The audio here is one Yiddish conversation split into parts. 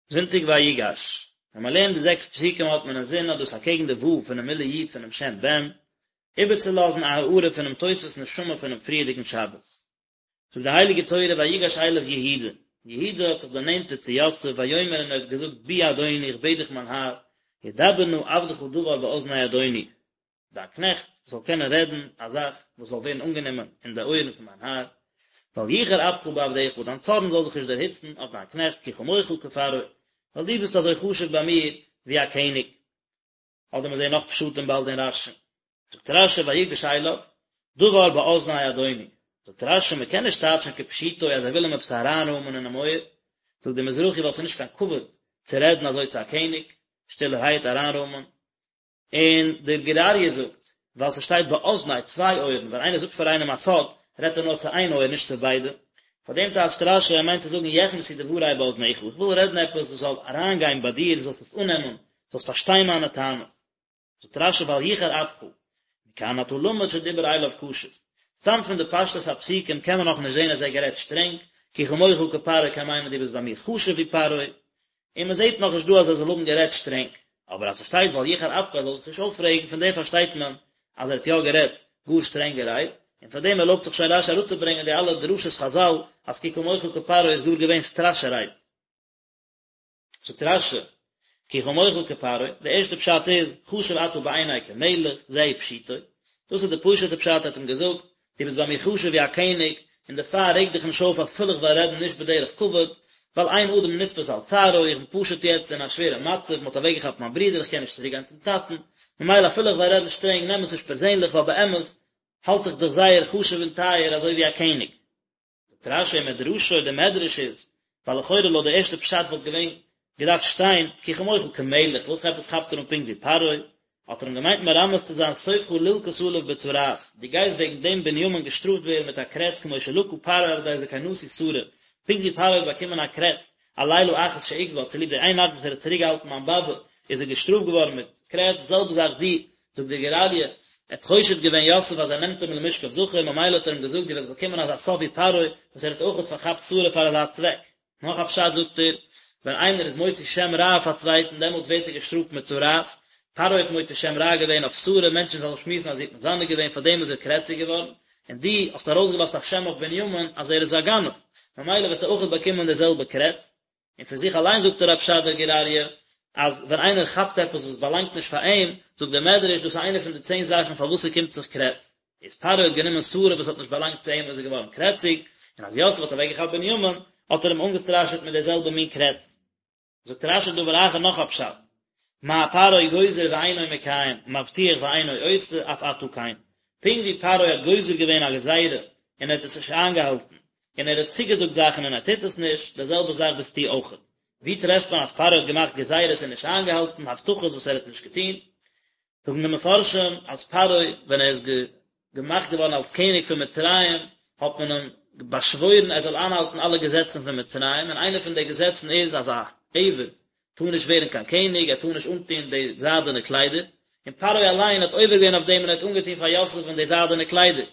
זונטאג ויגש, ווען מען לערנט די זעקס פסוקים האט מען אינזין אז דאס אקעגן די ו' פונעם מילוי י' פונעם שם בן, איבערצולאזן א הארה פונעם תוספות נשמה פונעם פריערדיגן שבת. זאגט די הייליגע תורה ויגש אליו יהודה, יהודה האט זיך דערנענטערט צו יוסף ויאמר און ער האט געזאגט בי אדוני איך בעט דיך מיין האר, ידבר נא עבדך דבר באזני אדוני, דיין קנעכט זאל קענען רעדן א זאך וואס זאל ווערן אנגענומען אין די אויערן פון מיין האר, ואל יחר אפך בעבדך, דיין צארן זאל זיך נישט דערהיצן אויף דיין קנעכט, כי כמוך כפרעה, ווייל דו ביסט אזוי חשוב ביי מיר ווי א קעניג. אדער מיר זעען נאך פשטים באלד אין רשי. זאגט רשי ויגש אליו, דבר באזני אדוני. זאגט רשי מען קען נישט טייטשן כפשוטו אז ער וויל אים עפעס אריינרוימען אינעם אויער, זאגט דער מזרחי ווייל ס'איז נישט קיין כבוד צו רעדן אזוי צו א קעניג, שטילערהייט אריינרוימען, און דער גור אריה זאגט, ווייל ס'שטייט באזני, צוויי אויערן, ווען איינער זאגט פאר איינעם א סוד, רעדט ער נאר צו איין אויער נישט צו ביידע. פאר דעם טייטשט רשי, ער מיינט צו זאגן יכנסו דברי באזניך, איך וויל רעדן עפעס וואס זאל אריינגיין ביי דיר, דו זאלסט עס אננעמען, זאלסט פארשטיין מיינע טענות. זאגט רשי ואל יחר אפך, מכאן אתה למד שדיבר אליו קשות. סתם פון די פשטות הפסוקים קען מען נאכנישט זען אז ער האט גערעדט שטרענג, כי כמוך כפרעה קען מיינען דו ביסט ביי מיר חשוב ווי פרעה, און מען זעט נאכנישט דא אז ער זאל האבן גערעדט שטרענג, אבער אז ס'שטייט ואל יחר אפך ער זאל זיך נישט אויפרעגן פון דעם פארשטייט מען אז ער האט יא גערעדט גאר שטרענגע רייד, און פאר דעם ערלויבט זיך שוין רשי אראפצוברענגען די אלע דרשות חזל אז כי כמוך כפרעה איז גאר געווען סטראשע רייד. זאגט רשי, כי כמוך כפרעה, די ערשטע פשט איז, חשוב אתה בעיני כמלך, זהו פשוטו, דאס איז די פשוט'ע פשט ער האט אים געזאגט, דו ביסט ביי מיר חשוב ווי א קעניג, און דערפאר רעג דיך נישט אויף אפילו איך וועל רעדן נישט בדרך כבוד, ווייל אין אדם נתפס על צערו, איך בין פשוט יעצט אין א שווערע מצב, מען האט אוועקגעכאפט מיין ברודער, איך קען נישט צוריק גיין צום טאטן, ממילא אפילו איך וועל רעדן שטרענג נעם עס נישט פערזענליך ווייל באמת האלט איך דיך זייער חשוב און טייער אזוי ווי א קעניג. זאגט רשי ומדרשו, די מדרש איז, ווייל לכאורה לויט די ערשטע פשט וואלט געווען געדארפט שטיין כי כמוך כמלך, וואס עפעס כאפט ער אן פונקט ווי פרעה? האט ער אים געמיינט מרמז צו זיין סופך ללקות עליו בצרעת, דו גייסט וועגן דעם בנימין געשטראפט ווערן מיט א קרעץ כמו שלקה פרעה על ידי זקנתי שרה, פונקט ווי פרעה האט באקומען א קרעץ על לילה אחת שעיכבה, צוליב די איין נאכט וואס ער האט צוריקגעהאלטן מיין באבע איז ער געשטראפט געווארן מיט קרעץ, די זעלבע זאך דו, זאגט דער גור אריה, ער האט חושד געווען יוסף אז ער נעמט אים למשכב זכר, ממילא האט ער אים געזאגט דו וועסט באקומען אזא סוף ווי פרעה, וואס ער האט אויכעט פארכאפט שרה פאר אזא צוועק. נאך א פשט זאגט ער, ווען איינער איז מוציא שם רע אויף א צווייטן דעמאלטס ווערט ער געשטראפט מיט צרעת, פרעה האט מוציא שם רע געווען אויף שרה, מענטשן זאלן שמועסן אז זי האט מזנה געווען, פארדעם איז ער קרעציג געווארן, און דו האסט ארויסגעלאזט א שם אויף בנימין אז ער איז א גנב, ממילא וועסטו אויכעט באקומען די זעלבע קרעץ. און פון זיך אליין זאגט ער א פשט דער גור אריה, אז ווען איינער כאפט עפעס וואס באלאנגט נישט פאר אים, זאגט דער מדרש, דאס איז איינע פון די צען זאכן פארוואס ס'קומט זיך קרעץ. איז פרעה האט גענומען שרה וואס האט נישט באלאנגט צו אים איז ער געווארן קרעציג, און אז יוסף האט אוועקגעכאפט בנימין, האט ער אים אנגעסטראשעט מיט די זעלבע מין קרעץ. זאגט רשי דבר אחר נאך א פשט, מה פרעה גוזר ואינו מקיים, מבטיח ואינו עושה, אף אתה כן. פונקט ווי פרעה האט גוזר געווען א גזירה און ער האט עס נישט איינגעהאלטן, און ער האט צוגעזאגט זאכן און ער טוט עס נישט, די זעלבע זאך ביסטו אויכעט. ווי טרעפט מען אז פרעה האט געמאכט גזירות און נישט איינגעהאלטן הבטחות וואס ער האט נישט געטון? זאגן די מפרשים אז פרעה ווען ער איז געמאכט געווארן אלס קעניג פון מצרים האט מען אים באשוואוירן ער זאל איינהאלטן אלע געזעצן פון מצרים, און איינע פון די געזעצן איז אז א עבד טאר נישט ווערן קיין קעניג, ער טאר נישט אנטון די זיידענע קליידער, און פרעה אליין האט עובר געווען אויף דעם און ער האט אנגעטון פאר יוסף'ן די זיידענע קליידער,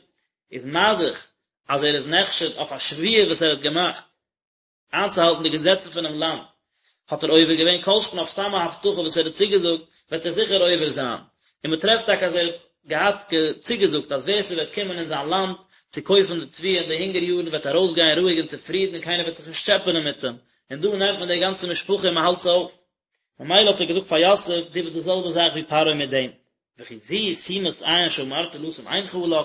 איז מה דאך אז ער איז נחשד אויף א שבועה וואס ער האט געמאכט איינצוהאלטן די געזעצן פונעם לאנד, האט ער עובר געווען, כל שכן אויף סתם א הבטחה וואס ער האט צוגעזאגט, וועט ער זיכער עובר זיין. און מען טרעפט טאקע אז ער האט געהאט צוגעזאגט אז ווער ס'וועט קומען אין זיין לאנד צו קויפן די תבואה אין די הונגער יארן וועט ארויסגיין רואיג און צופרידן און קיינער וועט זיך נישט טשעפענען מיט אים, און דא נעמט מען די גאנצע משפחה און מען האלט זיי אויף. ממילא האט ער געזאגט פאר יוסף, דו ביסט די זעלבע זאך ווי פרעה מיט דעם. וכי זו שימת עין שאמרת לשום עינך עליו,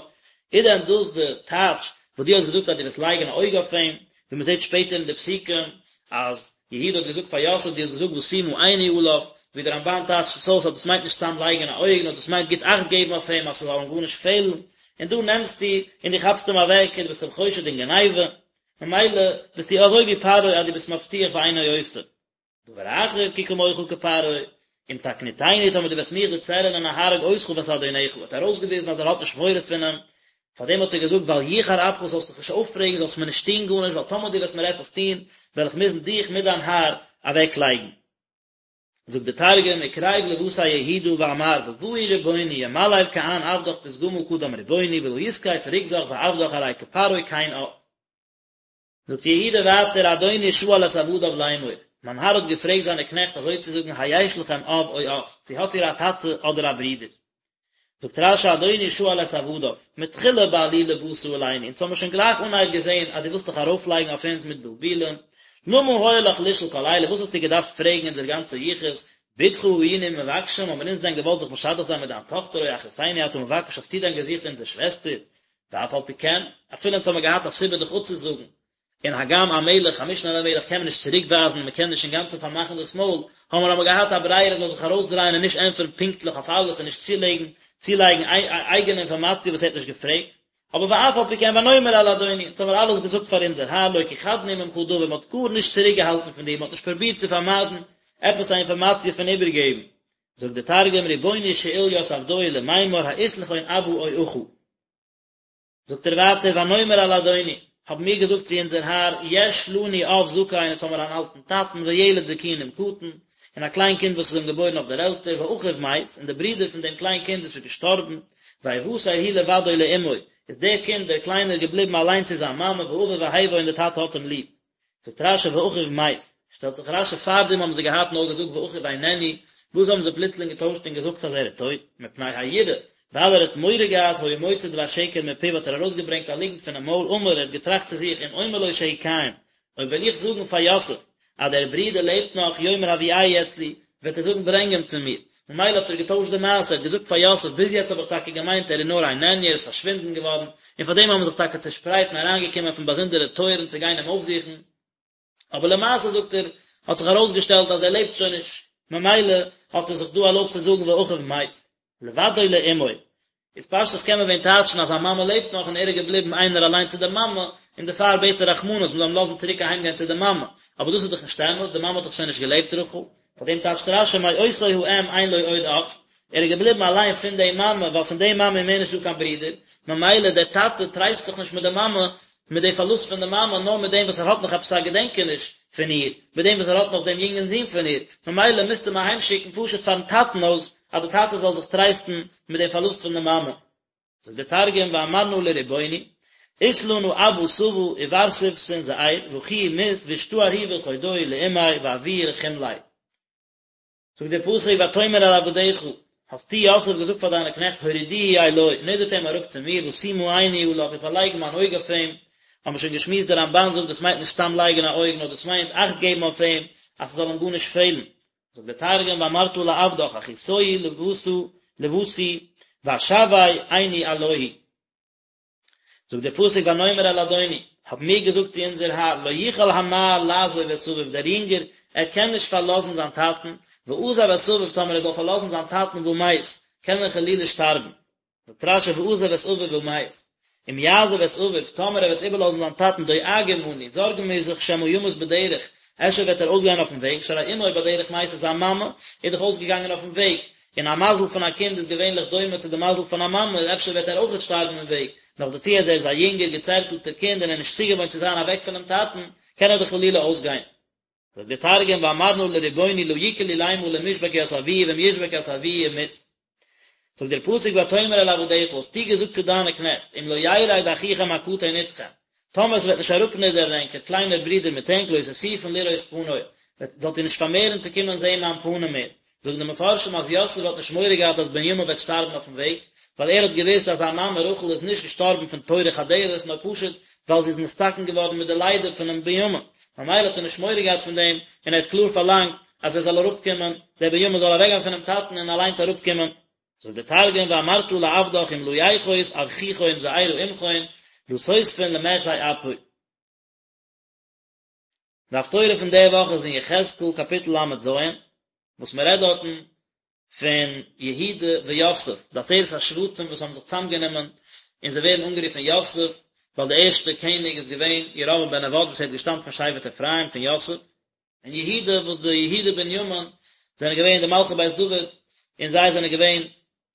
איז דען דאס די טייטש וואס דו האסט געזאגט אז דו וועסט לייגן א אויג אויף אים, ווי מען זעט שפעטער אין די פסוקים אז יהודה האט געזאגט פאר יוסף דו האסט געזאגט ואשימה עיני עליו, ווי דער רמב"ן טייטשט עס אויס אז דאס מיינט נישט סתם לייגן א אויג נאר דאס מיינט גוט אכט געבן אויף אים אז ס'זאל אים גארנישט פעלן, און דא נעמסטו און דו כאפסט אים אוועק און דו ביסט אים חושד אין גניבה, ממילא ביסטו אזוי ווי פרעה אז דו ביסט מבטיח ואינו עושה. דבר אחר כי כמוך כפרעה, אם תקניטני טאמער דו וועסט מיך דערצערענען אהרוג אותך ואת אדונך, האט ארויסגעוויזן אז ער האט נישט מורא פון אים, פארדעם האט ער געזאגט ואל יחר אפך זאלסט דיך נישט אויפרעגן זאלסט מיר נישט טון גארנישט ווייל טאמער דו וועסט מיר עפעס טון וועל איך מוזן דיך מיט דיין האר אוועקלייגן. זאגט דער תרגום, וקריב לוותיה יהודה ואמר בבאי רבוני ימליל כען עבדך פתגמא קדם רבוני ולא יתקיף רוגזך בעבדך ארי כפרעה כן את. זאגט יהודה ווייטער אדוני שאל את עבדיו לאמור. מיין האר האט געפרעגט זיינע קנעכט אזוי צו זאגן היש לכם אב או אח, צו האט איר א טאטע אדער א ברודער? זאגט רש"י אדוני שאל את עבדיו, מתחילה בעלילה באת עלינו, אונז האמיר שוין גלייך אנהייב געזען אז דו ווילסט דיך ארויפלייגן אויף אונז מיט בלבולים, למה היה לך לשאול כל אלה, וואס האסטו געדארפט פרעגן אונזער גאנצע יחוס, בתך היינו מבקשים, האבן אונז דען געוואלט זיך משדך זיין מיט דיין טאכטער או אחותנו אתה מבקש האסטו דען געזוכט אונזער שוועסטער? ואף על פי כן, אפילו אונז האמיר געהאט א סיבה דיך אפצוזאגן, און הגם א מלך, א משנה למלך קען מען נישט צוריק ווייזן און מען קען נישט אינגאנצן פארמאכן דאס מויל, האבן מיר אבער געהאט א ברירה ער זאל זיך ארויסדרייען און נישט ענטפערן פונקטליך אויף אלעס און נישט צולייגן צולייגן אייגענע אינפארמאציע וואס ער האט נישט געפרעגט. אבער ואף על פי כן ונאמר אל אדוני, אונז האבן מיר אלעס געזאגט פאר אונזער האר לא כיחדנו ממך דבר, מען האט גארנישט צוריקגעהאלטן פון דיר, מען האט נישט פרובירט צו פארמיידן עפעס א אינפארמאציע פון איבערגעבן. זאגט דער תרגום רבוני שאיל ית עבדוהי למימר האית לכון אבא או אחא. זאגט ער ווייטער ונאמר אל אדוני, האבן מיר געזאגט צו אונזער האר, יש לנו אב זקן, אונז האמיר אן אלטן טאטן, וילד זקונים קטן, און א קליין קינד וואס איז אים געבוירן אויף דער עלטער, ואחיו מת, און דער ברודער פון דעם קליין קינד איז שוין געשטארבן, ויותר הוא לבדו לאמו, איז דער קינד דער קליינער געבליבן אליין צו זיין מאמע, ואביו אוהבו און דער טאטע האט אים ליב. זאגט רש"י ואחיו מת, שטעלט זיך רש"י פארדעם האבן זיי געהאט נאר געזאגט ואחיו איננו, וואס האבן זיי פלוצלינג געטוישט און געזאגט אז ער איז טויט, מפני היראה, ווייל ער האט מורא געהאט היה מוציא דבר שקר מפיו האט ער ארויסגעברענגט א ליגנט פונעם מויל אמר ער האט געטראכט צו זיך אם אומר לו שהוא קיים, אויב וועל איך זאגן פאר יוסף אז דער ברודער לעבט נאך יאמר הביאהו אצלי, וועט ער זאגן ברענג אים צו מיר, ממילא האט ער געטוישט די מעשה, ער האט געזאגט פאר יוסף ביז יעצט האב איך טאקע געמיינט ער איז נאר איננו ער איז פארשווינדן געווארן, און פאר דעם האבן מיר זיך טאקע צעשפרייט און אריינגעקומען פון באזונדערע טויערן צו גיין אים אויפזוכן, אבער למעשה זאגט ער האט זיך ארויסגעשטעלט אז ער לעבט שוין נישט, ממילא האט ער זיך דא ערלויבט צו זאגן ואחיו מת. לבדו לאמו, איז פשטות קען מען ווען טייטשן אז זיין מאמע לעבט נאך און ער איז געבליבן איינער אליין צו די מאמע, און דערפאר בעט ער רחמנות מען זאל אים לאזן צוריק אהיים גיין צו די מאמע, אבער דאס איז דאך נישט אמת, די מאמע האט דאך שוין נישט געלעבט רחל, פאר דעם טייטשט רש"י מאותו האם אין לו עוד אח, ער איז געבליבן אליין פון די מאמע ווייל פון די מאמע איז מער נישט דא קיין ברודער, ממילא דער טאטע טרייסט זיך נישט מיט די מאמע, מיט די פארלוסט פון די מאמע, נאר מיט דעם וואס ער האט נאך עפעס א געדענקעניש פון איר, מיט דעם וואס ער האט נאך דעם יונגן זון פון איר, ממילא מוזטו אים אהיימשיקן פשוט פארן טאטן אויס, אז די טאטע זאל זיך טרייסטן מיט דעם פארלוסט פון די מאמע. זאגט דער תרגום ואמרנא לרבוני, אית לנא אבא סבא ובר סבתין זעיר ואחוהי מית ואשתאר הוא בלחודוהי לאמיה ואבוהי רחים ליה. זאגט דער פסוק ותאמר אל עבדיך, האסטו יוסף געזאגט פאר דיינע קנעכט הורידוהו אלי, נידערט אים אראפ צו מיר, ואשימה עיני עליו, איך וועל לייגן מיין אויג אויף אים, האבן מיר שוין געשמועסט דער רמב"ן זאגט דאס מיינט נישט סתם לייגן א אויג נאר דאס מיינט אכט געבן אויף אים אז ס'זאל אים גארנישט פעלן, זאגט דער תרגום ואמרת לעבדך אחתוהי לבתא לבתי ואשוי עיני עלוהי. זאגט דער פסוק ונאמר אל אדוני, האבן מיר געזאגט צו אונזער האר, לא יוכל הנער לעזוב את אביו, דער יונגער, ער קען נישט פארלאזן זיין טאטן, ועזב את אביו, טאמער ער זאל פארלאזן זיין טאטן ומת, קען ער חלילה שטארבן. זאגט רש"י ועזב את אביו ומת, אם יעזוב את אביו, טאמער ער וועט איבערלאזן זיין טאטן דואגים אנו, זארגן מיר זיך שמא ימות בדרך, אפשר וועט ער אויסגיין אויפן וועג, שהרי אמו בדרך מתה, זיין מאמע איז דאך אויסגעגאנגען אויפן וועג, און א מזל פון א קינד איז געווענליך דומה צו די מזל פון א מאמע, אפשר וועט ער אויכעט שטארבן אין וועג, נאכדערצו אז ער איז א יונגער געצערטלטער קינד און ער איז נישט צוגעוואוינט צו זיין אוועק פונעם טאטן, קען ער דאך חלילה אויסגיין. זאגט דער תרגום ואמרנא לרבוני לא יקל עולימא למשבק ית אבוהי ואם ישבק ית אבוהי ומית. זאגט דער פסוק ותאמר אל עבדיך האסטו געזאגט צו דיינע קנעכט אם לא ירד אחיכם הקטן אתכם טאמער עס וועט נישט אראפנידערן ענקער קליינער ברודער מיט ענק לא תוסיפון לראות פני זאלט איר נישט פארמערן צו קומען זען מיין פנים מער זאגן די מפרשים אז יוסף האט נישט מורא געהאט אז בנימין וועט שטארבן אויפן וועג, ווייל ער האט געוואוסט אז זיין מאמע רחל איז נישט געשטארבן פון טורח הדרך נאר פשוט ווייל זי איז נתתקן געווארן מיט די לידה פונעם בנימין, ממילא האט ער נישט מורא געהאט פון דעם, און ער האט קלאר פארלאנגט אז ער זאל אראפקומען, דער בנימין זאל אוועקגיין פונעם טאטן און אליינס אראפקומען. זאגט דער תרגום ואמרת לעבדך אם לא יחות אחיכון זעירא עמכון לא תוספון למחזי אפי. די הפטורה פון די וואך איז אין יחזקאל קאפיטל ל"ז, וואס מען רעדט דארטן פון יהודה ויוסף, די עשרת השבטים וואס האבן זיך צוזאמגענומען און זיי ווערן אנגערופן יוסף, ווייל דער ערשטער קעניג איז געווען ירבעם בן נבט וואס ער האט געשטאמט פון שבט אפרים פון יוסף, און יהודה וואס די יהודה בנימין זענען געווען די מלכי בית דוד, און זיי זענען געווען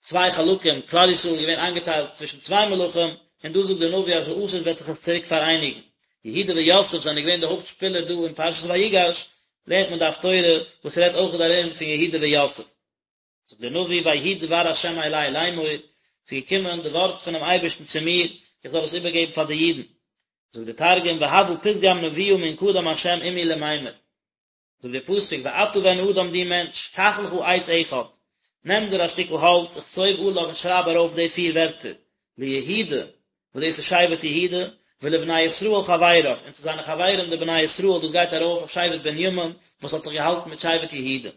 צוויי חלקים, כלל ישראל איז געווען איינגעטיילט צווישן צוויי מלכים, און דא זאגט דער נביא אז לעתיד וועט זיך עס צוריק פאראייניגן. יהודה ויוסף זענען געווען די הויפט שפילער דא אין פרשת ויגש, לערנט מען די הפטורה וואס רעדט אויך ארום פון יהודה ויוסף. זאגט דער נביא ויהי דבר ה' אלי לאמור, ס'איז געקומען די ווארט פונעם אייבערשטן צו מיר, איך זאל עס איבערגעבן פאר די אידן. זאגט דער תרגום והוה פתגם נבואה מן קדם ה' עמי למימר. זאגט דער פסוק ואתה בן אדם דו מענטש, קח לך עץ אחד, נעם דיר א שטיקל האלץ, וכתוב עליו און שרייב ארויף די פיר ווערטער, ליהודה, וואס דאס איז שבט יהודה, ולבני ישראל חבריו, און צו זיינע חברים די בני ישראל, דאס גייט ארויף אויף שבט בנימין, וואס האט זיך געהאלטן מיט שבט יהודה.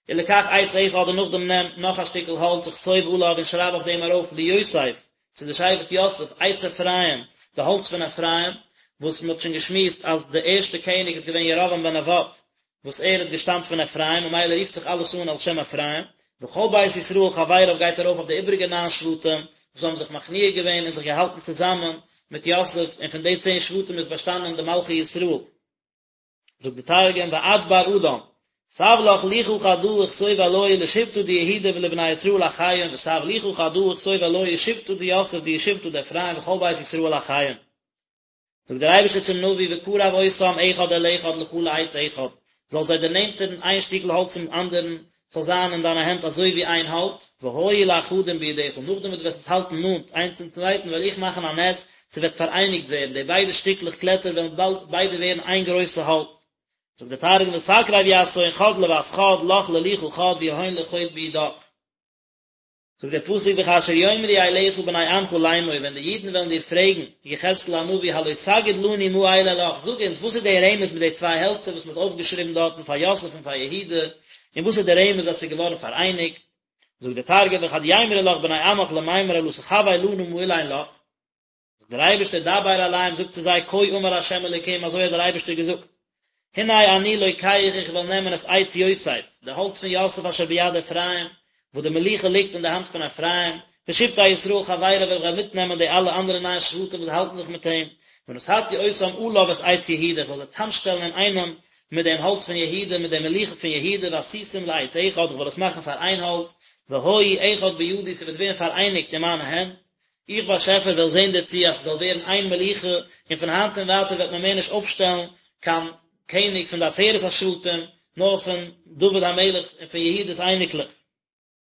ולקח עץ אחד און נאכדעם נעם נאך א שטיקל האלץ וכתוב עליו און שרייב אויף דעם ארויף ליוסף, צו די שבט יוסף, עץ אפרים, די האלץ פון אפרים, וואס מען האט שוין געשמועסט אז די ערשטע קעניג איז געווען ירבעם בן נבט, וואס ער האט געשטאמט פון אפרים, ממילא רופט זיך אלעס אן על שם אפרים, וכל בית ישראל חבריו גייט ארויף אויף די איבריגע ניין שבטים, וואס האבן זיך מכניע געווען און זיך געהאלטן צוזאמען מיט יוסף, און פון די צען שבטים איז באשטאנען די מלכי ישראל. זאגט די תרגום ואת בר אדם תב לך לוחא חדא וכתוב עלוהי לשבטא דיהודה ולבני ישראל אחיהון ותב לוחא חדא וכתוב עלוהי לשבטא דיוסף דהוא שבטא דאפרים וכל בית ישראל אחיהון זאגט דער אייבערשטער צום נביא וקרב אותם אחד אל אחד לך לעץ אחד זאל זיי דערנענטערן איין שטיקל האלץ צום אנדערן ס'זאל זיין אין דיינע הענט אזוי ווי איין האלץ, והיו לאחדים בידך, נאכדעם וואס דו וועסט עס האלטן נאנט איינס צום צווייטן וועל איך מאכן א נס, ס'וועט פאראייניגט ווערן, די ביידע שטיקלעך קלעצער וועלן באלד ביידע ווערן איין גרויסע האלץ. זאגט דער תרגום ותקרב יתהון חד לות חד לך ללוחא חד ויהון לחוד בידך. זאגט דער פסוק וכאשר יאמרו אליך בני עמך לאמור ווען די אידן וועלן דיר פרעגן, יחזקאל הנביא הלא תגיד לנו מה אלה לך, זאג אונז וואס איז דער רמז מיט די צוויי העלצער וואס מען האט אויפגעשריבן דארטן פאר יוסף און פאר יהודה, און וואס איז דער רמז אז עס איז געווארן פאראייניגט? זאגט דער תרגום וכד יימרו לך בני עמך למימר הלא תחוי לנא מה אלין לך, זאגט דער אייבערשטער דבר אליהם זאג צו זיי כה אמר ה' אלוקים אזוי האט דער אייבערשטער געזאגט הנה אני לוקח איך וועל נעמען את עץ יוסף די האלץ פון יוסף אשר ביד אפרים וואס די מלוכה ליגט אין די האנט פון אפרים ושבטי ישראל חבריו איך וועל מיטנעמען די אלע אנדערע ניין שבטים וואס האלטן זיך מיט אים ונתתי אותם עליו את עץ יהודה איך וועל זיי צאמשטעלן אינאיינעם מיט דעם האלץ פון יהודה מיט דער מלוכה פון יהודה ועשיתם לעץ אחד איך וועל עס מאכן פאר איין האלץ והיו אחד בידי ס'וועט ווערן פאראייניגט אין מיינע הענט איך באשעפער וועל זען דערצו אז ס'זאל ווערן איין מלוכה, און פון היינט און ווייטער וועט מען מער נישט אויפשטעלן קיין קעניג פון די עשרת השבטים, נאר פון דוד המלך און פון יהודה'ס אייניקלעך.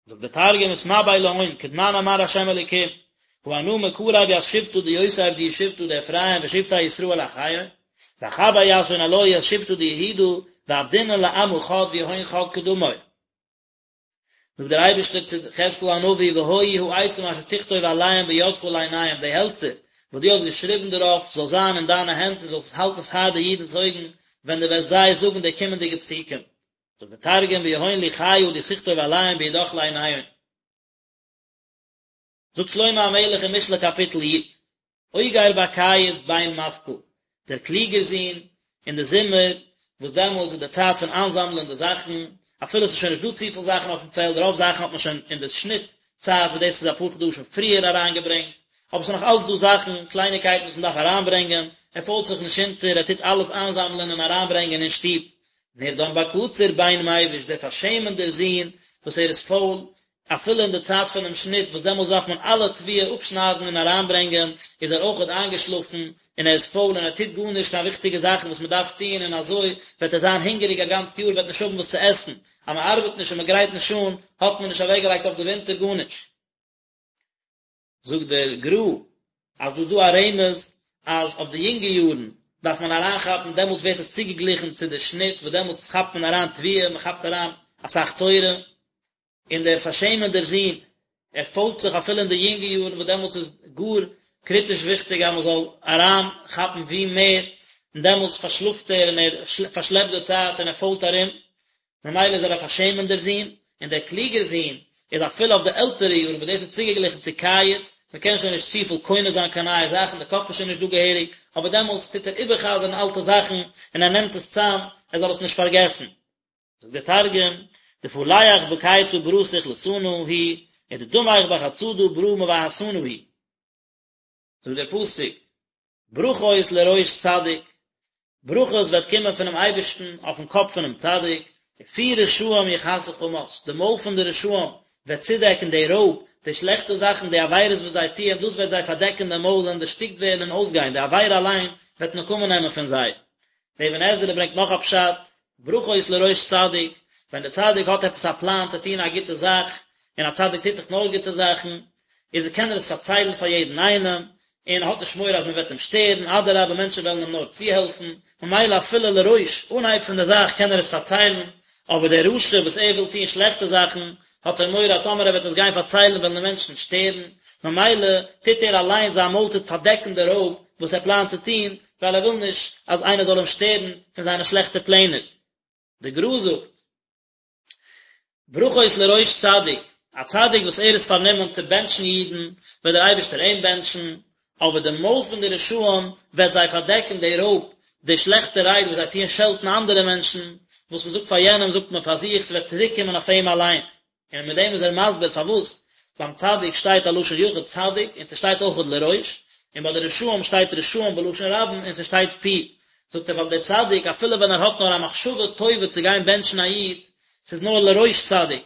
זאגט דער תרגום ותנבאי להון, כדנן אמר ה' אלוקים, הא אנא מקרב ית שבטא דיוסף דהוא שבטא דאפרים ושבטי ישראל אחיהון, ואחבר יתהון עלוהי ית שבטא דיהודה, ועבדינון לעמא חד ויהון חד קדמוי. זאגט דער אייבערשטער צו יחזקאל הנביא והיו העצים אשר תכתוב עליהם בידך לעיניהם די העלצער וואס דו האסט געשריבן דערויף זאל זיין אין דיינע הענט און זאלסט עס האלטן פאר די אידנ'ס אויגן ווען דו וועסט זיי זאגן די קומענדיגע פסוקים. זאגט דער תרגום ויהון לוחיא דתכתוב עליהון בידך לעיניהון. זאגט שלמה המלך אין משלי קאפיטל י', אוגר בקיץ בן משכיל, דער קלוגער זון, אין די זומער, וואס דעמאלטס איז די צייט פון איינזאמלען די זאכן, אפילו עס איז שוין נישט דא צופיל זאכן אויפן פעלד, רוב זאכן האט מען שוין אין די שניט צייט, וואס דאס איז אפאר חדשים פריער אריינגעברענגט, אבער עס איז נאך אלץ דא זאכן, קלייניקייטן וואס מען דארף אריינברענגען, ער פוילט זיך נישט אונטער, ער טוט אלעס איינזאמלען און אריינברענגען אין שטוב. נרדם בקציר בן מביש, דער פארשעמענדער זון, וואס ער איז פויל, אפילו אין די צייט פונעם שניט וואס דעמאלס דארף מען אלע תבואה אפשניידן און אריינברענגען, איז ער אויכעט איינגעשלאפן און ער איז פויל און ער טוט גארנישט קיין וויכטיגע זאכן וואס מען דארף טון און אזוי וועט ער זיין הונגעריג א גאנץ יאר וועט נישט האבן וואס צו עסן, אז מען ארבעט נישט און מען גרייט נישט אן האט מען נישט אוועקגעלייגט אויף די ווינטער גארנישט. זאגט דער גר"א אז דא איז דא א רמז אז אויף די יונגע יארן דארף מען אריינכאפן, דעמאלטס ווערט עס צוגעגליכן צו די שניט וואס דעמאלטס כאפט מען אריין תבואה, מען כאפט אריין אסאך תורה, און דער פארשעמענדער זון, ער פוילט זיך אפילו אין די יונגע יארן וואס דעמאלטס איז גאר קריטיש וויכטיג אז מען זאל אריין כאפן ווי מער, און דעמאלטס פארשלאפט ער און ער פארשלעפט די צייט און ער פוילט ארום, ממילא איז ער א פארשעמענדער זון, און דער קלוגער זון איז אפילו אויף די עלטערע יארן וואס דאס איז צוגעגליכן צו קיץ, מען קען שוין נישט צופיל קונה זיין קיין נייע זאכן, די קאפ איז שוין נישט דא געהעריג, אבער דעמאלטס טוט ער איבער'חזר'ן אלטע זאכן און ער נעמט עס צאם ער זאל עס נישט פארגעסן. זאגט דער תרגום, דפליח בקיטא ברא סכלתנא הוא, ודדמיך בחצדא ברא מבהתנא הוא. זאגט דער פסוק, ברכות לראש צדיק, ברכות וועט קומען פונעם אייבערשטן אויפן קאפ פונעם צדיק, ופי רשעים יכסה חמס, די מויל פון די רשעים וועט צודעקן די רויב, די שלעכטע זאכן, די עבירות וואס זיי טוען, דאס וועט זיי פארדעקן די מויל און דערשטיקט ווערן און אויסגיין, די עבירה אליין וועט נקמה נעמען פון זיי. דער אבן עזרא ברענגט נאך א פשט, ברכות לראש צדיק, ווען דער צדיק האט עפעס א פלאן צו טון א גוטע זאך, און א צדיק טוט דאך נאר גוטע זאכן, איז קען ער עס פארציילן פאר יעדן איינעם, און ער האט נישט מורא אז מען וועט אים שטערן, אדרבה מענטשן וועלן אים נאר צוהעלפן, ממילא אפילו לראש, אנהייב פון די זאך קען ער עס פארציילן, אבער דער רשע וואס ער וויל טון שלעכטע זאכן, האט ער מורא אז טאמער ער וועט עס גיין פארציילן וועלן די מענטשן שטערן, ממילא טוט ער אליין זיין מויל טוט פארדעקן די רויב וואס ער פלאנט צו טון, ווייל ער וויל נישט אז איינער זאל אים שטערן פון זיינע שלעכטע פלענער. די גר"א זאגט. ברכות לראש צדיק, א צדיק וואס ער איז פארנומען צו בענטשן אידן, וועט דער אייבערשטער אים בענטשן, אבער די מויל פון די רשעים וועט זיי פארדעקן די רויב, די שלעכטע רייד וואס זיי טוען שעלטן אנדערע מענטשן, וואס מען זאגט פאר יענעם זאגט מען פאר זיך, ס'וועט צוריק קומען אויף אים אליין. און מיט דעם איז ער מסביר פארוואס ביים צדיק שטייט א לשון יחיד צדיק און ס'שטייט אויכעט לראש, און ביי די רשעים שטייט רשעים בלשון רבים און ס'שטייט פי, זאגט ער ווייל דער צדיק אפילו ווען ער האט נאר א מחשבה טובה צו גיין בענטשן א איד, ס'איז נאר לראש צדיק,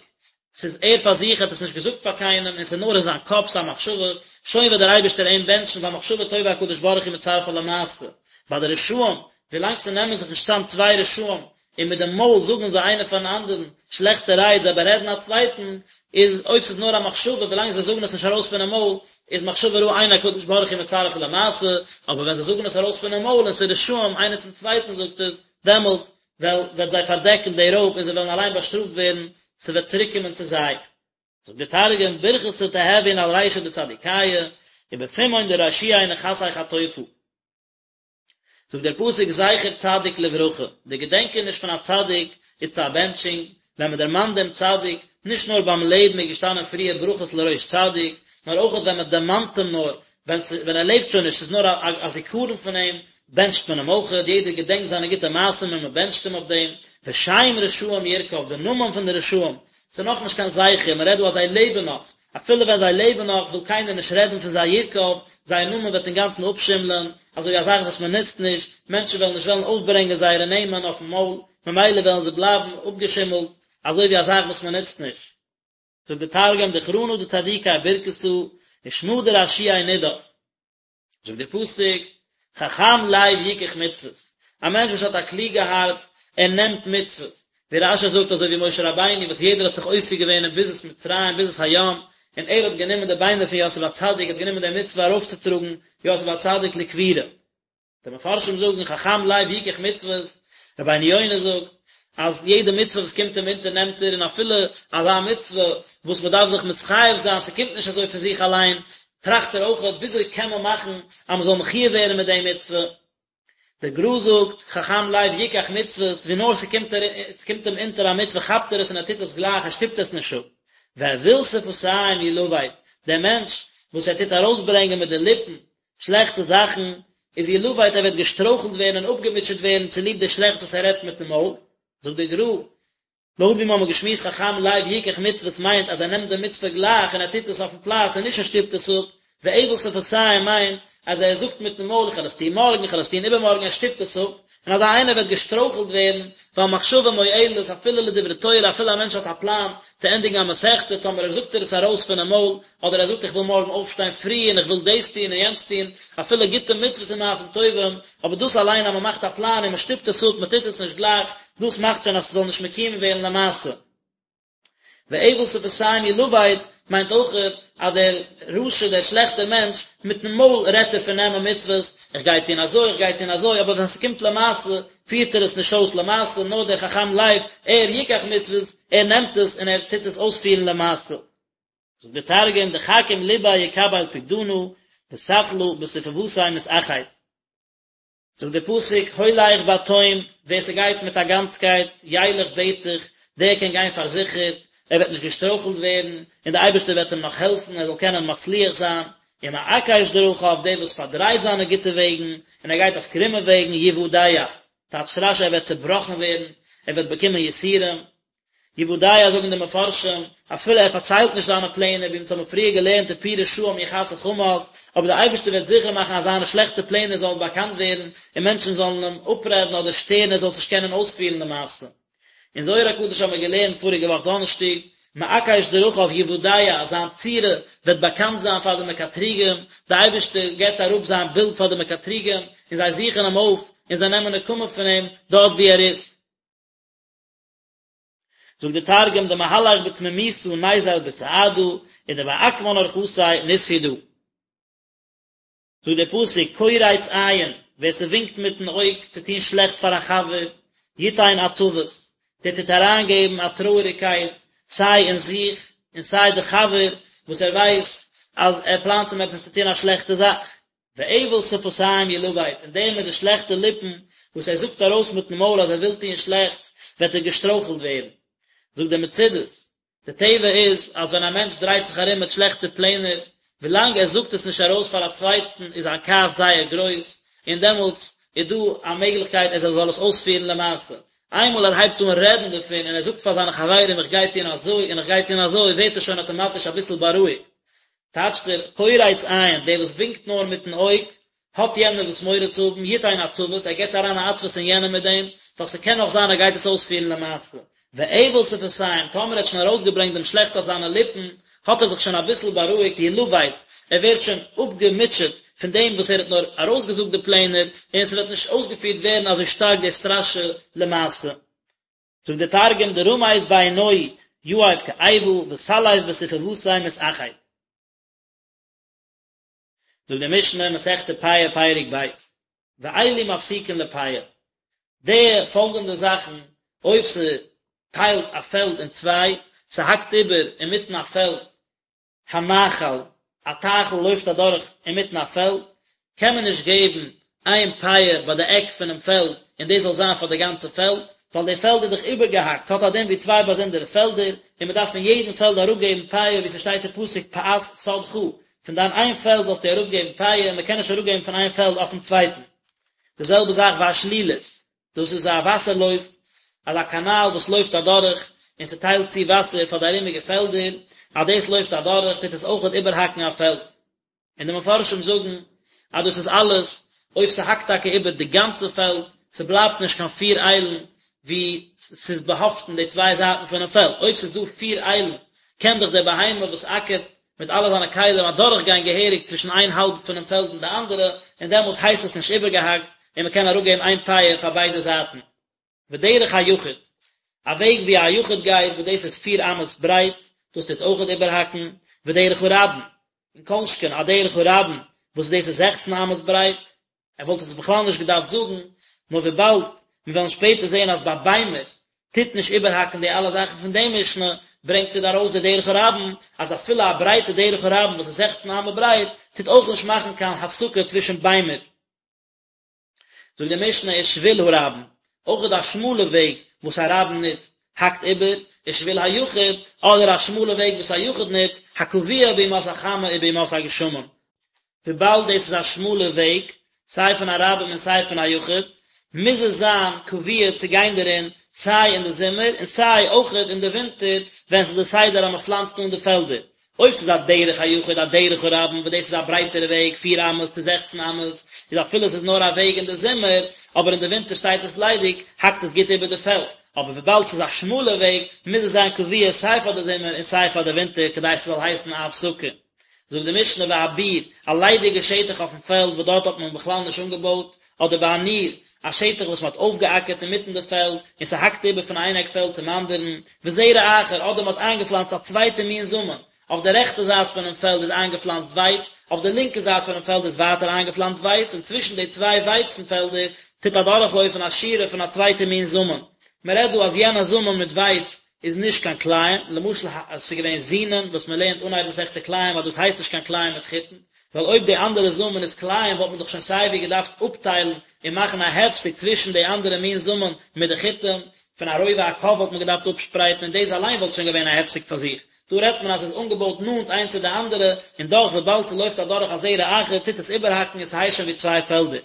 ס'איז ער פאר זיך האט עס נישט געזאגט פאר קיינעם און ס'איז נאר אין זיין קאפ ס'א מחשבה, שוין וועט דער אייבערשטער אים בענטשן ווייל מחשבה טובה הקדוש ברוך הוא מצרפה למעשה. ביי די רשעים, ווילאנג ס'נעמען זיך נישט צאם צוויי רשעים און מיט דעם מויל זאגן זיי איינער פארן אנדערן שלעכטע רייד, זיי בארעדן א צווייטן, איז אויב ס'איז נאר א מחשבה, ווילאנג זיי זאגן עס נישט ארויס פונעם מויל, איז מחשבה רעה אין הקדוש ברוך הוא מצרפה למעשה, אבער ווען זיי זאגן עס ארויס פונעם מויל און ס'איז רשעים איינער צום צווייטן זאגט עס, דעמאלט וועל וועט זיי פארדעקן די רויב און זיי וועלן אליין באשטראפט ווערן, ס'וועט צוריקקומען צו זיי. זאגט דער תרגום, ברכתא תהוין על רישא דצדיקיא, ובפומהון דרשיעי נכסי חטופא. זאגט דער פסוק זכר צדיק לברכה, די געדענקעניש פון א צדיק איז צו א בענטשונג, ווען מען דערמאנט דעם צדיק, נישט נאר ביים לעבן איז געשטאנען פריער ברכות לראש צדיק, נאר אויך ווען מען דערמאנט אים נאר, ווען ווען ער לעבט שוין נישט, ס'איז נאר א זיכרון פון אים, בענטשט מען אים אויך, יעדער געדענקט זיינע גוטע מעשים און מען בענטשט אים אויף דעם, ושם רשעים ירקב, די נאמען פון די רשעים, ס'איז נאכנישט קיין זכר, מען רעדט דא אז זיי לעבן נאך, אפילו ווען זיי לעבן נאך וויל קיינער נישט רעדן פון זיי ירקב, זייער נאמען וועט אינגאנצן אפשימלען, אזוי ווי א זאך וואס מען נוצט נישט, מענטשן וועלן נישט וועלן אויפברענגען זייערע נעמען אויפן מויל, ממילא וועלן זיי בלייבן אפגעשימלט, אזוי ווי א זאך וואס מען נוצט נישט. זאגט דער תרגום, דכרנא דצדיקי ברכתא, ושמא דרשיעי נדף. זאגט דער פסוק, חכם לב יקח מצוות, א מענטש וואס האט א קלוגע הארץ, ער נעמט מצוות, ווי רש"י זאגט אזוי ווי משה רבינו וואס יעדער האט זיך עוסק געווען אין ביזת מצרים ביזת הים, און ער האט גענומען די ביינער פון יוסף הצדיק, האט גענומען די מצוה ארויפצוטראגן יוסף הצדיק לקבורה. די מפרשים זאגן חכם לב יקח מצוות, רבינו יונה זאגט אז יעדע מצוה וואס קומט אים אונטער נעמט ער, און אפילו אזא מצוה וואס מען דארף זיך מתחייב זיין, ס'קומט נישט אזוי פון זיך אליין, טראכט ער אויכעט וויאזוי קען מען מאכן אז מען זאל מחויב ווערן מיט די מצוה. דער גר"א זאגט, חכם לב יקח מצוות, ווי נאר ס'קומט ס'קומט אים אונטער א מצוה כאפט ער עס און ער טוט עס גלייך, ער שטופט עס נישט אפ. ואויל שפתים ילבט, דער מענטש וואס ער טוט ארויסברענגען מיט די ליפן שלעכטע זאכן, איז ילבט ער וועט געשטרויכלט ווערן און אפגעמוטשעט ווערן צוליב די שלעכטס וואס ער רעדט מיטן מויל, זאגט דער גר"א, לויט ווי מיר האבן געשמועסט חכם לב יקח מצוות מיינט אז ער נעמט די מצוה גלייך און ער טוט עס אויפן פלאץ און נישט ער שטופט עס אפ, ואויל שפתים מיינט אז ער זאגט מיטן מויל איך וועל עס טון מארגן איך וועל עס טון איבערמארגן ער שטופט עס אפ, און אזא איינער וועט געשטרויכלט ווערן, ווייל מחשבה מועלת אפילו לדברי תורה אפילו א מענטש האט א פלאן צו ענדיגן א מסכתא טאמער ער זאגט ער עס ארויס פונעם מויל אדער ער זאגט איך וויל מארגן אויפשטיין פרי און איך וויל דאס טון און יענץ טון, אפילו גוטע מצוות און מעשים טובים, אבער דאס אליין אז מען מאכט א פלאן און מען שטופט עס אפ, מען טוט עס נישט גלייך, דאס מאכט שוין אז ס'זאל נישט מקוים ווערן למעשה. ואויל שפתים ילבט מיינט אויכעט אז דער רשע, דער שלעכטער מענטש, מיטן מויל רעדט ער פון נעמען מצוות, איך גיי טון אזוי, איך גיי טון אזוי, אבער ווען ס'קומט למעשה, פירט ער עס נישט אויס למעשה, נאר דער חכם לב, ער יקח מצוות, ער נעמט עס און ער טוט עס אויספירן למעשה. זאגט דער תרגום, דחכים לביה יקבל פקדנא, וסכלא בספוותיה מתאחיד. זאגט דער פסוק, הולך בתום, ווער ס'גייט מיט א גאנצקייט, ילך בטח, דער קען גיין פארזיכערט, ער וועט נישט געשטרויכלט ווערן, און דער אייבערשטער וועט אים נאך העלפן ער זאל קענען מצליח זיין, ומעקש דרכיו, דער וואס פארדרייט זיינע גוטע וועגן, און ער גייט אויף קרומע וועגן, יוודע, טייטשט רש"י ער וועט צעבראכן ווערן, ער וועט באקומען יסורים, יוודע זאגן די מפרשים, אפילו ער פארציילט נישט זיינע פלענער, ווי אונז האבן פריער געלערנט ופי רשעים יכסה חמס, אבער דער אייבערשטער וועט זיכער מאכן אז זיינע שלעכטע פלענער זאלן באקאנט ווערן, און מענטשן זאלן אים אפרעדן אדער שטערן ער זאל עס נישט קענען אויספירן למעשה. אין זוהר הקדוש האבן מיר געלערנט פאריגע וואך דאנערשטאג, מעקש דרכיו יוודע אז זיין צורה וועט באקאנט זיין פאר די מקטריגים, דער אייבערשטער געבט אראפ זיין בילד פאר די מקטריגים, און זיי זוכן אים אויף, און זיי נעמען נקמה פון אים דארט וואו ער איז. זאגט דער תרגום דמהלך בתמימותא ניזיל בסעדא ודמעקמן ארחתיה נתידע. זאגט דער פסוק, קורץ עין, ווער ס'ווינקט מיטן אויג צו טון שלעכטס פאר א חבר, יתן עצבות, דער טוט אריינגעבן א טרויעריגקייט סיי אין זיך און סיי די חבר וואס ער ווייסט אז ער פלאנט אים עפעס צו טון א שלעכטע זאך. ואבל שפתיים ילבט, און דער מיט די שלעכטע ליפן וואס ער זאגט ארויס מיטן מויל אז ער וויל טון שלעכטס, וועט ער געשטרויכלט ווערן. זאגט דער מצודות, די טבע איז אז ווען א מענטש דרייט זיך ארום מיט שלעכטע פלענער, ווילאנג ער זאגט עס נישט ארויס פאר א צווייטן איז זיין כעס זייער גרויס, און דעמאלטס איז דא א מעגליכקייט אז ער זאל עס אויספירן למעשה. איינמאל ער הייבט אן רעדן דערפון און ער זאגט פאר זיינע חברים איך גיי טון אזוי און איך גיי טון אזוי ווערט ער שוין אטאמאטיש אביסל בארואיגט. טייטשט ער, קורץ עין, דער וואס ווינקט נאר מיטן אויג, האט יענער וואס מורא צו האבן, יתן עצבות, ער געבט אריין א עצבות אין יענעם מיט דעם, ווייל ס'קען נאך זיין ער גייט עס אויספירן למעשה. ואבל שפתיים, טאמער ער האט שוין ארויסגעברענגט דעם שלעכטס אויף זיינע ליפן, האט ער זיך שוין אביסל בארואיגט, ילבט, ער ווערט שוין אפגעמוטשעט פון דעם וואס ער האט נאר ארויסגעזאגט די פלענער, און ס'וועט נישט אויסגעפירט ווערן אזוי שטארק די סטראשע למעשה. זאגט דער תרגום, דרמיז בעינוהי יהיב כאיבא, וסליף בספוותיה מתאחד. זאגט די משנה, מסכת פאה פרק ב', ואלו מפסיקין לפאה, די פאלגענדע זאכן, אויב ס'טיילט א פעלד אין צוויי, ס'האקט איבער אינמיטן א פעלד, הנחל, א טייכל לויפט אדורך אינמיטן א פעלד, קען מען נישט געבן איין פאה ביי די עק פונעם פעלד און דאס זאל זיין פאר די גאנצע פעלד, ווייל די פעלד איז דאך איבערגעהאקט, ס'האט א דין ווי צוויי באזונדערע פעלדער, און מען דארף פון יעדן פעלד אראפגעבן פאה ווי ס'שטייט אין פסוק פאת שדך, פון דיין איין פעלד זאלסטו אראפגעבן פאה, מען קען נישט אראפגעבן פון איין פעלד אויפן צווייטן. די זעלבע זאך והשלולית, דאס איז א וואסער לויף, אזא קאנאל וואס לויפט אדורך און ס'טיילט צו וואסער פאר די ארומיגע פעלדער, אז דאס לויפט אדורך טוט עס אויכעט איבערהאקן א פעלד. און די מפרשים זאגן אז דאס איז אלעס אויב ס'האקט טאקע איבער די גאנצע פעלד, ס'בלייבט נישט קיין פיר איילן ווי ס'איז באהאפטן די צוויי זייטן פונעם פעלד, אויב ס'איז דא פיר איילן קען דאך דער בהמה וואס אקערט מיט אלע זיינע כלים אדורך גיין געהעריג צווישן איין האלב פונעם פעלד און די אנדערע, און דעמאלס הייסט עס נישט איבערגעהאקט און מ'קען אראפגעבן איין פאה פאר ביידע זייטן. ודרך היחיד, א וועג ווי א יחיד גייט וואס דאס איז פיר אמות ברייט, דאס טוט אויכעט איבערהאקן, ודרך הרבים, און כל שכן א דרך הרבים וואס דאס איז זעכצן אמות ברייט, ער וואלט עס בכלל נישט געדארפט זאגן, נאר וויבאלד מיר וועלן שפעטער זען אז ביי ביימער טוט נישט איבערהאקן די אלע זאכן פון די משנה, ברענגט ער דא ארויס די דרך הרבים, אז אפילו א ברייטע דרך הרבים וואס איז זעכצן אמה ברייט, טוט אויך נישט מאכן קיין הפסקה צווישן ביימער. זאגט די משנה ושביל הרבים, אויך א שמאלע וועג וואס א רבים נוצט האקט איבער, ושביל היחיד, אדער א שמאלע וועג וואס א יחיד נוצט, הקבוע בימות החמה ובימות הגשמים. וויבאלד דאס איז א שמאלע וועג, סיי פון א רבים און סיי פון א יחיד, מוז עס זיין קבוע צו גיין דערין סיי אין די זומער און סיי אויכעט אין די ווינטער ווען ס'איז די סדר אז מ'פלאנצט אן די פעלדער, אויב ס'איז א דרך היחיד א דרך הרבים וואס דאס איז א ברייטערע וועג פיר אמות צו זעכצן אמות, איז אפילו ס'איז נאר א וועג אין די זומער, אבער אין די ווינטער שטייט עס ליידיג, האקט עס גוט איבער די פעלד, אבער וויבאלד ס'איז א שמאלע וועג, מוז עס זיין קבוע סיי פאר די זומער און סיי פאר די ווינטער כדי ס'זאל הייסן א הפסקה. זאגט די משנה והביר, א ליידיגע שטח אויפן פעלד וואס דארט האט מען בכלל נישט אנגעבויט, אדער והניר, א שטח וואס מען האט אויפגעאקערט אינמיטן די פעלד, און ס'האקט איבער פון איין עק פעלד צום אנדערן, וזרע אחר, אדער מען האט איינגעפלאנצט א צווייטע מין זאמען, אויף די רעכטע זייט פונעם פעלד איז איינגעפלאנצט ווייץ, אויף די לינקע זייט פונעם פעלד איז ווייטער איינגעפלאנצט ווייץ, און צווישן די צוויי ווייצן פעלדער טוט אדורכלויפן א שורה פון א צווייטע מין זאמען. מען רעדט דא אז יענע זאמען מיט ווייץ איז נישט קיין כלאים, למשל אז ס'איז געווען זונין וואס מען לערנט אנהייב מסכת כלאים אז דאס הייסט נישט קיין כלאים מיט חיטין, ווייל אויב די אנדערע זאמען איז כלאים וואלט מען דאך שוין סייווי געדארפט אפטיילן און מאכן א הפסק צווישן די אנדערע מין זאמען מיט די חיטים, פון א רובע הקב וואלט מען געדארפט אפשפרייטן און דאס אליין וואלט שוין געווען א הפסק פאר זיך, דא רעדט מען אז ס'איז אנגעבויט נאנט איינס צו די אנדערע און דאך וויבאלד ס'לויפט אדורך א זרע אחר טוט עס איבערהאקן און ס'הייסט שוין ווי צוויי פעלדער.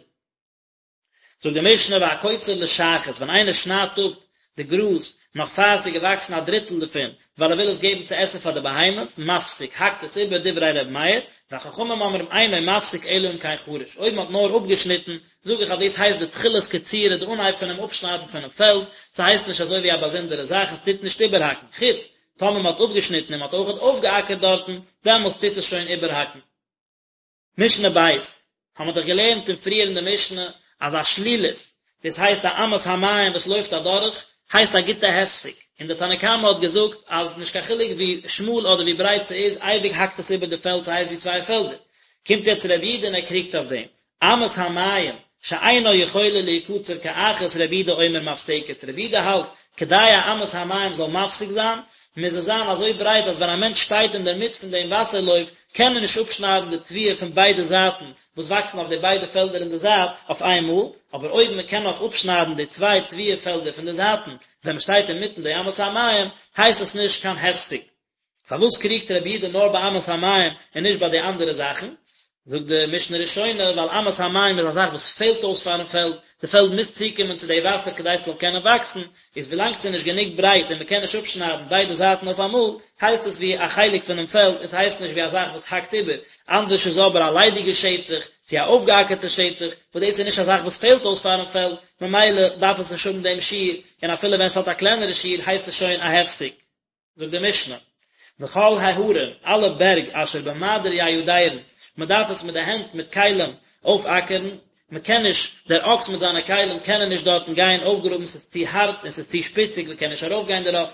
זאגט די משנה והקוצר לשחת, ווען איינער שניידט אפ די גראז נאך פאר עס איז געוואקסן א דריטל דערפון, ווייל ער וויל עס געבן צו עסן פאר די בהמות, מפסיק, האקט עס איבער, דברי ר' מאיר, וחכמים אומרים אינו מפסיק אלא אם כן חרש, אויב מען האט נאר אפגעשניטן, זאג איך אז דאס הייסט די תחילת קצירה, די אנהייב פונעם אפשניידן פונעם פעלד, ס'הייסט נישט אזוי ווי א באזונדערע זאך, עס טוט נישט איבערהאקן, חוץ טאמער מען האט אפגעשניטן און מען האט אויכעט אויפגעאקערט דארטן, דעמאלטס טוט עס שוין איבערהאקן. משנה ב', האבן מיר דאך געלערנט אין פריער אין די משנה אז א שלולית, דאס הייסט א אמת המים וואס לויפט אדורך, הייסט א גוטע הפסק, און די תנא קמא האט געזאגט אז נישט קיין חילוק ווי שמאל אדער ווי ברייט ס'איז, אייביג האקט עס איבער די פעלד ס'הייסט ווי צוויי פעלדער. קומט יעצט רבי יהודה און ער קריגט אויף דעם, אמת המים שאינה יכולה להיקצר כאחת רבי יהודה אומר מפסקת, רבי יהודה האלט, כדי א אמת המים זאל מפסיק זיין, מוז עס זיין אזוי ברייט אז ווען א מענטש שטייט אינדערמיט פון דעם וואסער לויף, קען מען נישט אפשניידן די תבואה פון ביידע זייטן וואס וואקסן אויף די ביידע פעלדער אין די זייט אויף איינמאל, אבער אויב מען קען נאך אפשניידן די צוויי תבואה פעלדער פון די זייטן ווען מען שטייט אינמיטן די אמת המים, הייסט עס נישט קיין הפסק. פארוואס קריגט רבי יהודה נאר ביי אמת המים און נישט ביי די אנדערע זאכן? זאגט די משנה ראשונה, ווייל אמת המים איז א זאך וואס פעלט אויס פארן פעלד, די פעלד מוז צוקומען צו די וואסער כדי ס'זאל קענען וואקסן, איז ווילאנג ס'איז נישט גענוג ברייט און מ'קען נישט אפשניידן ביידע זייטן אויף אמאל, הייסט עס ווי א חלק פונעם פעלד און ס'הייסט נישט ווי א זאך וואס האקט איבער, אנדערש איז אבער א ליידיגע שטח, צו א אויפגעאקערטע שטח, וואס דאס איז נישט א זאך וואס פעלט אויס פארן פעלד, ממילא דארף עס נישט האבן דעם שיעור, און אפילו ווען ס'האט א קלענערע שיעור הייסט עס שוין א הפסק. זאגט די משנה, וכל ההרים, אלע בערג אשר במעדר יידרון, מען דארף עס מיט די הענט מיט כלים אויפאקערן, מען קען נישט, דער אקס מיט זיינע כלים קענען נישט דארטן גיין אויפגראבן, ס'איז צו הארט און ס'איז צו שפיציג, מען קען נישט ארויפגיין דערויף,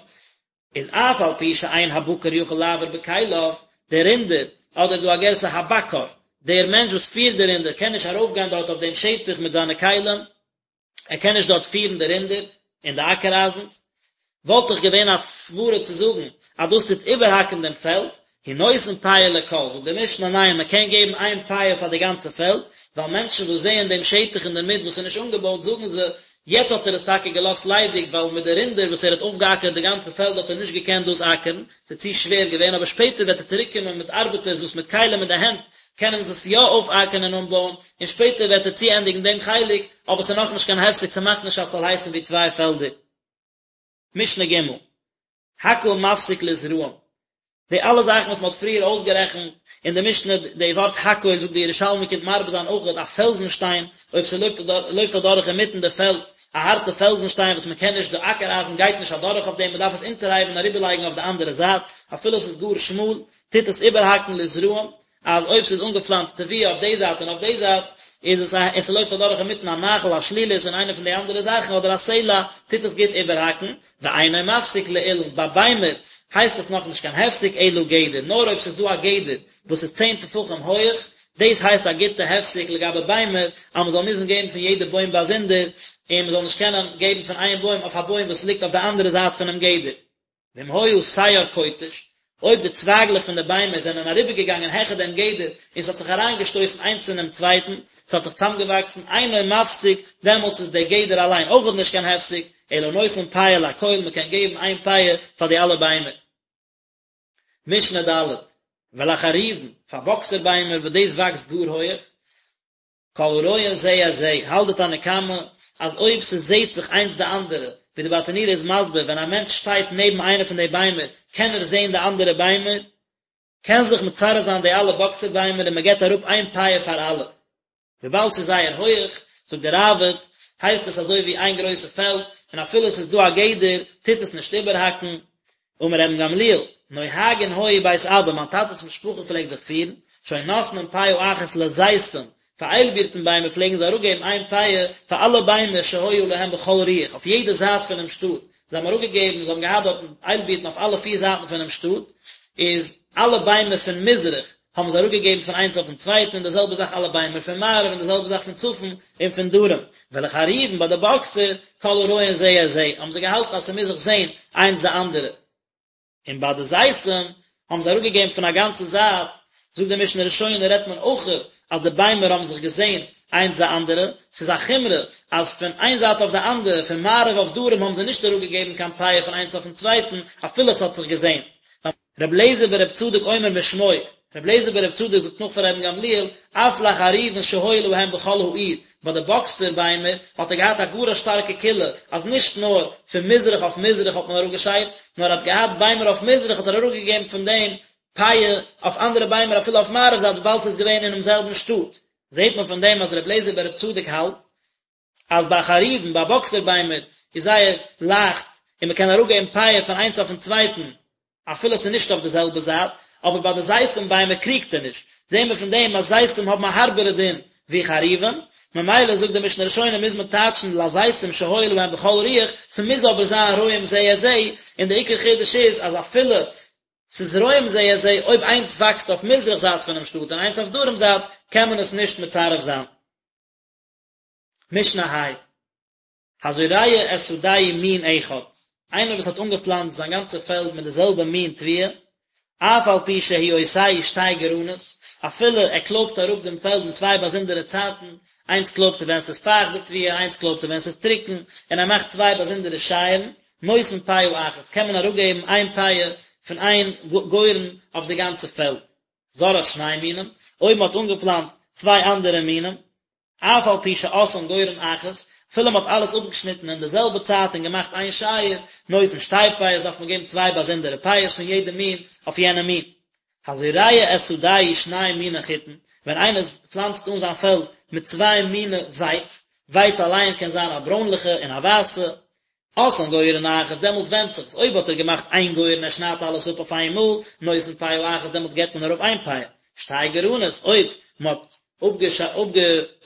איז אף על פי שאין הבקר יכול לעבור בכליו, דער רינדער, אדער דא א גירסא הבקר, דער מענטש וואס פירט די רינדער קען נישט ארויפגיין דארט אויף דעם שטח מיט זיינע כלים, ער קען נישט דארט פירן די רינדער און די אקער אייזנס, וואלט דאך געווען א סברה צו זאגן אז דאס טוט איבערהאקן דעם פעלד, הוא נותן פאה לכל, זאגט די משנה ניין מען קען געבן איין פאה פאר די גאנצע פעלד, ווייל מענטשן וואס זעען דעם שטח אינדערמיט וואס איז נישט אנגעבויט זאגן זיי, יעצט האט ער עס טאקע געלאזט ליידיג ווייל מיט די רינדער וואס ער האט אויפגעאקערט די גאנצע פעלד האט ער נישט געקענט דאס אקערן, ס'איז צו שווער געווען, אבער שפעטער וועט ער צוריקקומען מיט ארבעטערס וואס מיט כלים אין די הענט קענען זיי עס יא אויפאקערן און אנבויען, און שפעטער וועט ער צוענדיגן דעם חלק, אבער ס'איז נאכנישט קיין הפסק, ס'מאכט נישט אז ס'זאל הייסן ווי צוויי פעלדער. משנה ג', הכל מפסיק לזרעים, די אלע זאכן וואס מ'האט פריער אויסגערעכנט אין די משנה, די ווארט הכל זאגט די ירושלמי קומט מרבה זיין אויכעט א פעלזן שטיין, אויב ס'לויפט אדורך אינמיטן די פעלד, א הארטע פעלזן שטיין וואס מ'קען נישט, די אקער אייזן גייט נישט אדורך אויף דעם, מ'דארף עס אונטערהייבן און אריבערלייגן אויף די אנדערע זייט, אפילו ס'איז גאר שמאל, טוט עס איבערהאקן לזרעים, אז אויב ס'איז אנגעפלאנצט תבואה אויף די זייט און אויף די זייט, איז עס א, און ס'לויפט אדורך אינמיטן א נחל, א שלולית און איינע פון די אנדערע זאכן, אדער א סלע, טוט עס גוט איבערהאקן, ואינו מפסיק לאילן, ביי ביימער הייסט עס נאכנישט קיין הפסק אלא גדר, נאר אויב ס'איז דא א גדר וואס איז צען טפחים הויעך, דאס הייסט א גוטע הפסק לגבי ביימער, אז מ'זאל מוזן געבן פון יעדע בוים באזונדער, און מ'זאל נישט קענען געבן פון איין בוים אויף א בוים וואס ליגט אויף די אנדערע זייט פונעם גדר. ואם היה שער כותש, אויב די צווייגלעך פון די ביימער זענען אריבערגעגאנגען העכער דעם גדר און ס'האט זיך אריינגעשטויסן איינס אינעם צווייטן, ס'האט זיך צוזאמגעוואקסן, אינו מפסיק, דעמאלטס איז דער גדר אליין אויכעט נישט קיין הפסק, אלא נותן פאה לכל, מ'קען געבן איין פאה פאר די אלע ביימער. משנה ד', ולחרובין, פאר באקסער ביימער וואס דאס וואקסט גאר הויעך, כל הרואין זה את זה, האלט די תנא קמא אז אויב ס'זעהט זיך איינס די אנדערע, ווי די ברטנורא איז מסביר ווען א מענטש שטייט נעבן איינע פון די ביימער קען ער זעהן די אנדערע ביימער, קען זיך מצרף זיין די אלע באקסער ביימער און מ'געט אראפ איין פאה פאר אלע. וויבאלד ס'איז זייער הויעך, זאגט די ראב"ד, הייסט עס אזוי ווי איין גרויסע פעלד, און אפילו ס'איז דא א גדר טוט עס נישט איבערהאקן, אמר רבן גמליאל, נוהגין היו בית אבא, מיין טאטע'ס משפחה פלעגט זיך פירן, שהיו נותנין פאה אחת לזיתים, פאר איילבירטן ביימער פלעגן זיי אראפגעבן איין פאה פאר אלע ביימער שהיו להם בכל רוח, אויף יעדע זייט פונעם שטאט, זיי האבן אראפגעגעבן, זיי האבן געהאט דארטן איילבירטן אויף אלע פיר זייטן פונעם שטאט, איז אלע ביימער פון מזרח האבן זיי אראפגעגעבן פון איינס אויפן צווייטן, און די זעלבע זאך אלע ביימער פון מערב, און די זעלבע זאך פון צפון און פון דרום. ולחרובין ביי די באקסער, כל הרואין זה את זה, האבן זיי געהאלטן אז ס'מוז זיך זען איינס די אנדערע. און ביי די זיתים האבן זיי אראפגעגעבן פון א גאנצע זייט, זאגט די משנה ראשונה רעדט מען אויך אז די ביימער האבן זיך געזען איינס די אנדערע, ס'איז א חומרא אז פון איין זייט אויף די אנדערע, פון מערב אויף דרום האבן זיי נישט אראפגעגעבן קיין פאה פון איינס אויפן צווייטן, אפילו ס'האט זיך געזען. רבי אליעזר ברבי צדוק אומר משמו, רבי אליעזר ברבי צדוק זאגט נאך פון רבן גמליאל, אף לחרובין שהיו להם בכל העיר, ביי די באקסער ביימער האט ער געהאט א גאר א שטארקע קולא, אז נישט נאר פון מזרח אויף מזרח האט מען אראפגעשיידט, נאר ער האט געהאט ביימער אויף מזרח האט ער אראפגעגעבן פון דעם פאה אויף אנדערע ביימער אפילו אויף מערב זייט וויבאלד ס'איז געווען אינעם זעלבן שטאט. זעט מען פון דעם אז רבי אליעזר ברבי צדוק האלט אז ביי חרובין, ביי באקסער ביימער, איז זייער לייכט און מען קען אראפגעבן פאה פון איינס אויפן צווייטן אפילו עס איז נישט אויף די זעלבע זייט, אבער ביי די זיתים ביימער קריגט ער נישט, זעהן מיר פון דעם אז זיתים האבן א הארבערע דין ווי חרובין, ממילא זאגט די משנה ראשונה מוז מען טייטשן לזיתים שהיו להם בכל רוח, ס'מוז אבער זיין רואים זה את זה, און די עיקר חידוש איז אז אפילו. ס'איז רואים זה את זה, אויב איינס וואקסט אויף מזרח זייט פונעם שטאט און איינס אויף דרום זייט, קען מען עס נישט מצרף זיין. משנה ה'. הזורע את שדהו מין אחד, איינער וואס האט אנגעפלאנצט זיין גאנצע פעלד מיט די זעלבע מין תבואה, אף על פי שהוא עושהו שתי גרנות, אפילו ער קלויבט אראפ דעם פעלד אין צוויי באזונדערע צייטן, איינס קלויבט ער ווען ס'איז פייכט די תבואה, איינס קלויבט ער ווען ס'איז טרוקן, און ער מאכט צוויי באזונדערע שייערן, נותן פאה אחת, קען מען אראפגעבן איין פאה פון איין גורן אויף די גאנצע פעלד. זרעה שני מינים, אויב מ'האט אנגעפלאנצט צוויי אנדערע מינים, אף על פי שעשאן גורן אחת, אפילו מ'האט אלעס אפגעשניטן אין די זעלבע צייט און געמאכט איין שייער, נותן שתי פאות דארף מען געבן צוויי באזונדערע פאות פון יעדע מין אויף יענע מין. הזורע את שדהו שני מיני חיטין, ווען איינער פלאנצט אן זיין פעלד מיט צוויי מיני ווייץ, ווייץ אליין קען זיין א ברוינליכע און א ווייסע, עשאן גורן אחת, דעמאלטס ווענדט זיך עס, אויב האט ער געמאכט איין גורן ער שניידט אלעס אפ אויף איין מאל, נותן פאה אחת דעמאלטס געבט מען אראפ איין פאה, שתי גרנות, אויב מען האט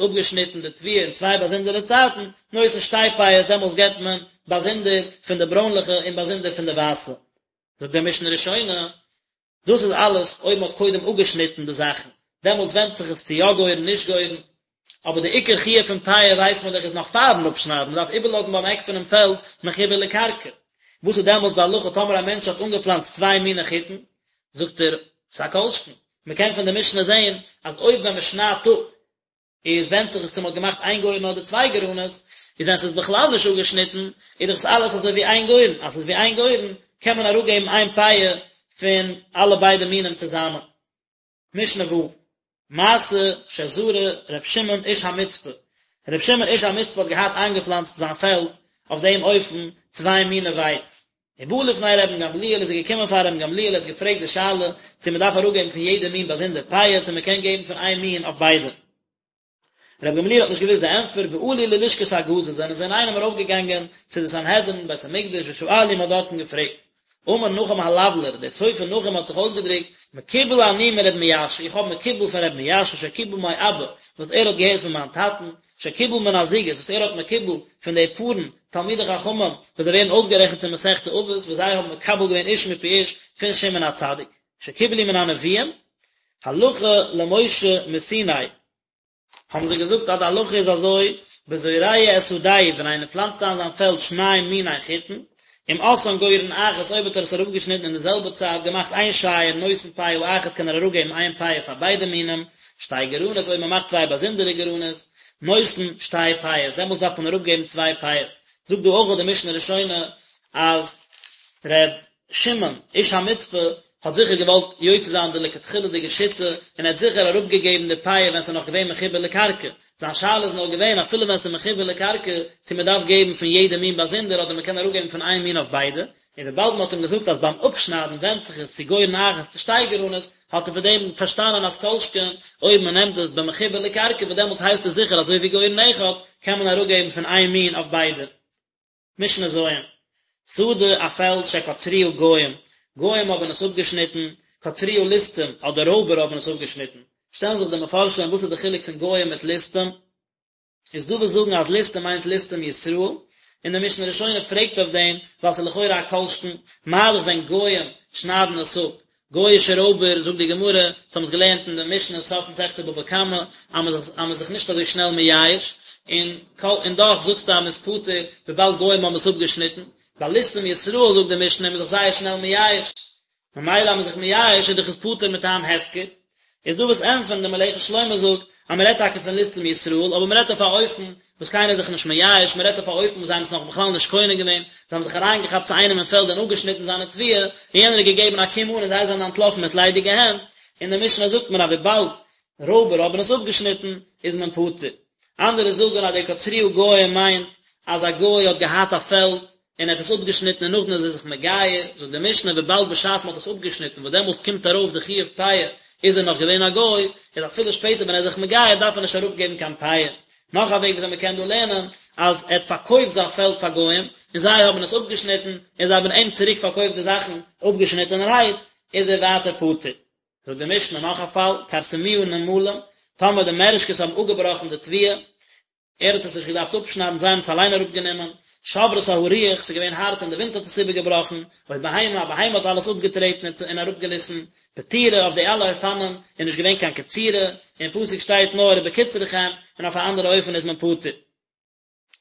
אפגעשניטן די תבואה אין צוויי באזונדערע צייטן, נותן שתי פאות דעמאלטס געבט מען באזונדער פון די ברוינליכע און באזונדער פון די ווייסע. זאגט דער משנה ראשונה, דאס איז אלעס אויב מען האט קודם אפגעשניטן די זאכן, דעמאלטס ווענדט זיך עס צו יא גורן נישט גורן, אבער די עיקר חיוב פון פאה ווייסט מען דאך איז נאך פארן אפשניידן, מען דארף איבערלאזן ביים עק פונעם פעלד מחובר לקרקע. וואס איז דעמאלטס די הלכה טאמער א מענטש האט אנגעפלאנצט צוויי מיני חיטין? זאגט ער, ס'א כל שכן, מען קען פון די משנה זען אז אויב ווען מען שניידט אפ איז ווענדט זיך עס צו מען האט געמאכט איין גורן אדער צוויי גרנות, איז ווען ס'איז בכלל נישט אפגעשניטן, איז דאך עס אלעס אזוי ווי איין גורן, אז ס'איז ווי איין גורן, קען מען אראפגעבן איין פאה פון אלע ביידע מינים צוזאמען. משנה ו', מעשה שזרע ר' שמעון איש המצפה, ר' שמעון איש המצפה האט געהאט איינגעפלאנצט זיין פעלד אויף דעם אופן צוויי מיני ווייץ, ובא לפני רבן גמליאל איז ער געקומען פאר רבן גמליאל ער האט געפרעגט די שאלה צו מען דארף אראפגעבן פון יעדע מין באזונדער פאה צו מען קען געבן פון איין מין אויף ביידע. רבן גמליאל האט נישט געוואוסט די ענטפער ועלו ללשכת הגזית זענען זיי אינאיינעם ארויפגעגאנגען צו די סנהדרין בית המקדש ושאלו מען האט דארטן געפרעגט. אמר נחום הלבלר, דער סופר נחום האט זיך אויסגעדריקט, מקובל אני מרבי מיאשא, איך האב מקובל פון רבי מיאשא שקיבל מאבא, וואס ער האט געהערט פון מיין טאטן, שקיבל מן הזוגות, וואס ער האט מקובל פון די פארן תלמידי חכמים, וואס זיי ווערן אויסגערעכנט אין מסכת אבות, וואס זיי האבן מקבל געווען איש מפי איש פון שמעון הצדיק, שקיבלו מן הנביאים, הלכה למשה מסיני. האבן זיי געזאגט אז די הלכה איז אזוי, בזורע את שדהו, ווען איינער פלאנצט איין זיין פעלד שני מיני חיטין, אם עשאן גורן אחת, אויב האט ער עס אראפגעשניטן אין די זעלבע צייט, געמאכט איין שייער, נותן פאה אחת קען ער אראפגעבן איין פאה פאר ביידע מינים, שתי גרנות, אויב מען מאכט צוויי באזונדערע גרנות, נותן שתי פאות, דעמאלטס דארף מען אראפגעבן צוויי פאות. זאגט דא אויך די משנה ראשונה אז ר' שמעון איש המצפה האט זיכער געוואלט יוצא זיין די לכתחילה'דיגע שיטה און ער האט זיכער אראפגעגעבן די פאה ווען ס'איז נאך געווען מחובר לקרקע, זיין שאלה איז נאר געווען אפילו ווען ס'איז מחובר לקרקע צו מ'דארף געבן פון יעדע מין באזונדער אדער מ'קען אראפגעבן פון איין מין אויף ביידע, און וויבאלד מ'האט אים געזאגט אז ביים אפשניידן ווענדט זיך עס צו גורן אחת צו שתי גרנות, האט ער פון דעם פארשטאנען אז כל שכן אויב מ'נעמט עס במחובר לקרקע וואס דעמאלטס הייסט עס זיכער אזוי ווי גורן אחד, קען מען אראפגעבן פון איין מין אויף ביידע. משנה ז', שדה א פעלד שקצרוה גוים, גוים האבן עס אפגעשניטן, קצרוה ליסטים אדער רויבער האבן עס אפגעשניטן, שטעלן זיך די מפרשים וואס איז די חילוק פון גוים מיט ליסטים, איז דא וואס זאגן אז ליסטים מיינט ליסטים ישראל, און די משנה ראשונה פרעגט אויף דעם ווייל ס'איז לכאורה א כל שכן, מה דאך ווען גוים שניידן עס אפ, גוי'אישע רויבער, זאגט די גמרא, אונז האבן עס געלערנט אין די משנה סוף מסכת בבא קמא, אז מען איז זיך נישט אזוי שנעל מייאש, און און דאך זאגסטו אז מען איז פטור וויבאלד גוים האבן עס אפגעשניטן, ביי ליסטים ישראל זאגט די משנה איז מען זיך זייער שנעל מייאש, ממילא אז מען איז זיך מייאש איז דאך עס פטור מטעם הפקר, איז דא וואס ענטפערן, די מלאכת שלמה זאגט אז מען רעדט טאקע פון ליסטים ישראל, אבער מען רעדט אויף א אופן וואס קיינער איז זיך נישט מייאש, מען רעדט אויף א אופן וואס זיי האבן עס נאך בכלל נישט קונה געווען, זיי האבן זיך אריינגעכאפט צו איינעם אין פעלד און אפגעשניטן זיינע תבואה, און יענער האט געגעבן א קום אן און זיי זענען אנטלאפן מיט ליידיגע הענט, אין די משנה זאגט מען אז וויבאלד רויבער האבן עס אפגעשניטן איז מען פטור. אנדערע זאגן אז די קצרוה גוים מיינט אז א גוי האט געהאט א פעלד און ער האט עס אפגעשניטן און נאכדעם איז ער זיך מגייר, זאגט די משנה וויבאלד בשעת מען האט עס אפגעשניטן וואס דעמאלטס קומט ארויף די חיוב פאה איז ער נאך געווען א גוי, איז אפילו שפעטער ווען ער איז זיך מגייר דארף ער נישט אראפגעבן קיין פאה. נאך א וועג וויאזוי מען קען דא לערנען, אז ער האט פארקויפט זיין פעלד פאר גוים, און זיי האבן עס אפגעשניטן, און זיי האבן אים צוריק פארקויפט די זאכן אפגעשניטענערהייט, איז ער ווייטער פטור. זאגט די משנה נאך א פאל, כרסמוה נמלים, טאמער די מערעשקעס האבן אפגעבראכן די תבואה. ער האט עס נישט געדארפט אפשניידן, זיי האבן עס אליין אראפגענומען, שברתה הרוח, ס'איז געווען הארט און די ווינט האט עס איבערגעבראכן, או בהמה, א בהמה האט אלעס אפגעטרעטן און אראפגעריסן, פטורה, אויף די אלע אופנים איז נישט געווען קיין קצירה, אין פסוק שטייט נאר ובקצרכם, און אויף א אנדערע אופן איז מען פטור.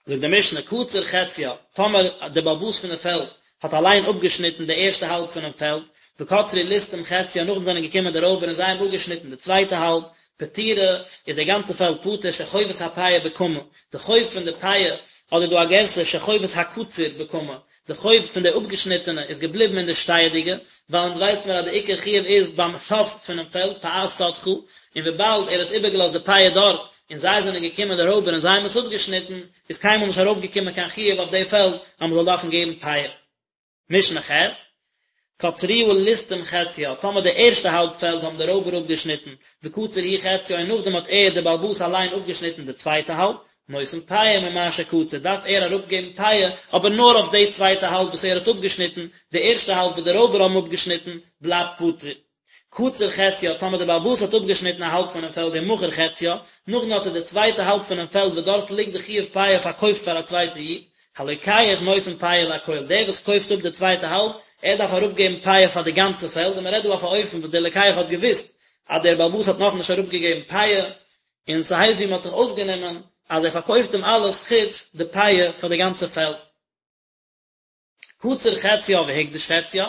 זאגט די משנה, קצר חציה, טאמער דער בעל הבית פון די פעלד האט אליין אפגעשניטן די ערשטע האלב פונעם פעלד, וקצרו ליסטים חציה, נאכדעם זענען געקומען די רויבער און זיי האבן אפגעשניטן די צווייטע האלב, פטורה, איז די גאנצע פעלד פטור, שחובת הפאה בקמה, די חוב פון די פאה, אדער דא א גירסא שחובת הקצור בקמה, די חוב פון די אפגעשניטענע איז געבליבן אין די שטייעדיגע, ווייל אונז ווייסט מיר אז די עיקר חיוב איז ביים סוף פונעם פעלד, פאת שדך, און וויבאלד ער האט איבערגעלאזט די פאה דארט, און זיי זענען געקומען די רויבער און זיי האבן עס אפגעשניטן, איז קיינמאל נישט ארויפגעקומען קיין חיוב אויף די פעלד אז מען זאל דארפן געבן פאה. משנה ח', קצרוה ליסטים חציה, טאמער די ערשטע האלב פעלד האבן די רויבער אפגעשניטן, וקצר הוא חציה און נאכדעם האט ער, דער בעל הבית אליין אפגעשניטן די צווייטע האלב, נותן פאה ממה שקצר, דארף ער אראפגעבן פאה, אבער נאר אויף די צווייטע האלב וואס ער האט אפגעשניטן, די ערשטע האלב וואס די רויבער האבן אפגעשניטן, בלייבט פטור. קצר חציה, טאמער דער בעל הבית האט אפגעשניטן א האלב פונעם פעלד ומכר חציה, נאכדעם האט ער די צווייטע האלב פונעם פעלד וואס דארט ליגט די חיוב פאה פארקויפט פאר א צווייטע איד, הלוקח נותן פאה לכל, דער וואס קויפט אפ די צווייטע האלב, ער דארף אראפגעבן פאה פאר די גאנצע פעלד, און מען רעדט דא אויף א אופן וואס דער לוקח האט געוואוסט אז דער בעל הבית האט נאכנישט אראפגעגעבן פאה, און ס'הייסט ווי מ'האט זיך אויסגענומען אז ער פארקויפט אים אלעס חוץ די פאה פאר די גאנצע פעלד. קצר חציה והקדיש חציה,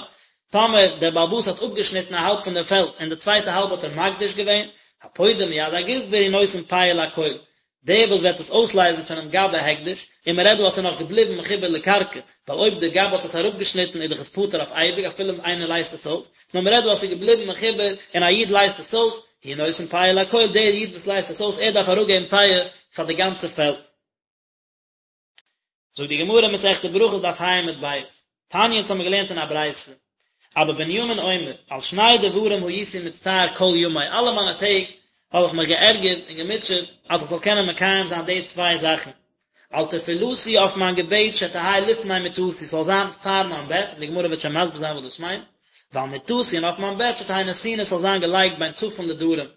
טאמער דער בעל הבית האט אפגעשניטן א האלב פון דעם פעלד און די צווייטע האלב האט ער מקדיש געווען, הפודה מיד הגזבר הוא נותן פאה לכל, דער וואס וועט עס אויסלייזן פונעם גבאי הקדש, און מען רעדט דא אז ס'איז נאך געבליבן מחובר לקרקע, ווייל אויב דער גבאי האט עס אראפגעשניטן איז דאך עס פטור אויף אייביג אפילו איינער לייזט עס אויס, נאר מען רעדט דא אז ס'איז געבליבן מחובר און א איד לייזט עס אויס, הוא נותן פאה לכל, דער איד וואס לייזט עס אויס ער דארף אראפגעבן פאה פאר די גאנצע פעלד. זאגט די גמרא מסכת ברכות דף ה' עמוד ב', תניא אונז האמיר געלערנט אין א ברייתא, אבא בנימין אומר, על שני דברים הייתי מצטער כל ימי, אלע מיינע טעג האב איך מיך געערגערט און געמוטשעט אז איך זאל קענען מקיים זיין די צוויי זאכן, על תפילתי אויף מיין געבעט שתהא לפני מיטתי ס'זאל זיין פאר מיין בעט, און די גמרא וועט שוין מסביר זיין וואס דאס מיינט, ועל מיטתי און אויף מיין בעט שתהא נתונה ס'זאל זיין געלייגט בין צפון לדרום.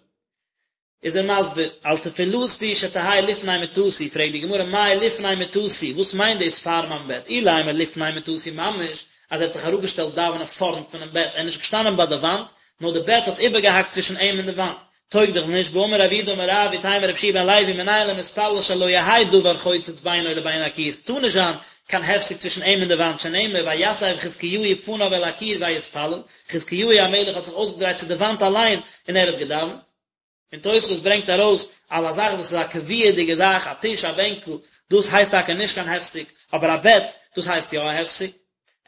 איז ער מסביר, על תפילתי שתהא לפני מיטתי, פרעגט די גמרא מאי לפני מיטתי, וואס מיינט דאס פאר מיין בעט, אילימא לפני מיטתי ממש, אז ער האט זיך אראפגעשטעלט דאווענען פארנט פונעם בעט, ער איז נישט געשטאנען ביי די וואנט, נאר די בעט האט איבערגעהאקט צווישן אים און די וואנט, טויג דאך נישט, והאמר רב יהודה אמר רב, ואיתימא רבי יהושע בן לוי מנין למתפלל שלא יהא דבר חוצץ בינו לבין הקיר, ס'טאר נישט זיין קיין הפסק צווישן אים און די וואנט, שנאמר ויסב חזקיהו פניו אל הקיר ויתפלל, חזקיהו המלך האט זיך אויסגעדרייט צו די וואנט אליין און ער האט געדאווענט. און תוספות ברענגט ארויס אז א זאך וואס איז א קביעה'דיגע זאך, א טיש, א בענקל, דאס הייסט טאקע נישט קיין הפסק, אבער א בעט, דאס הייסט יא א הפסק.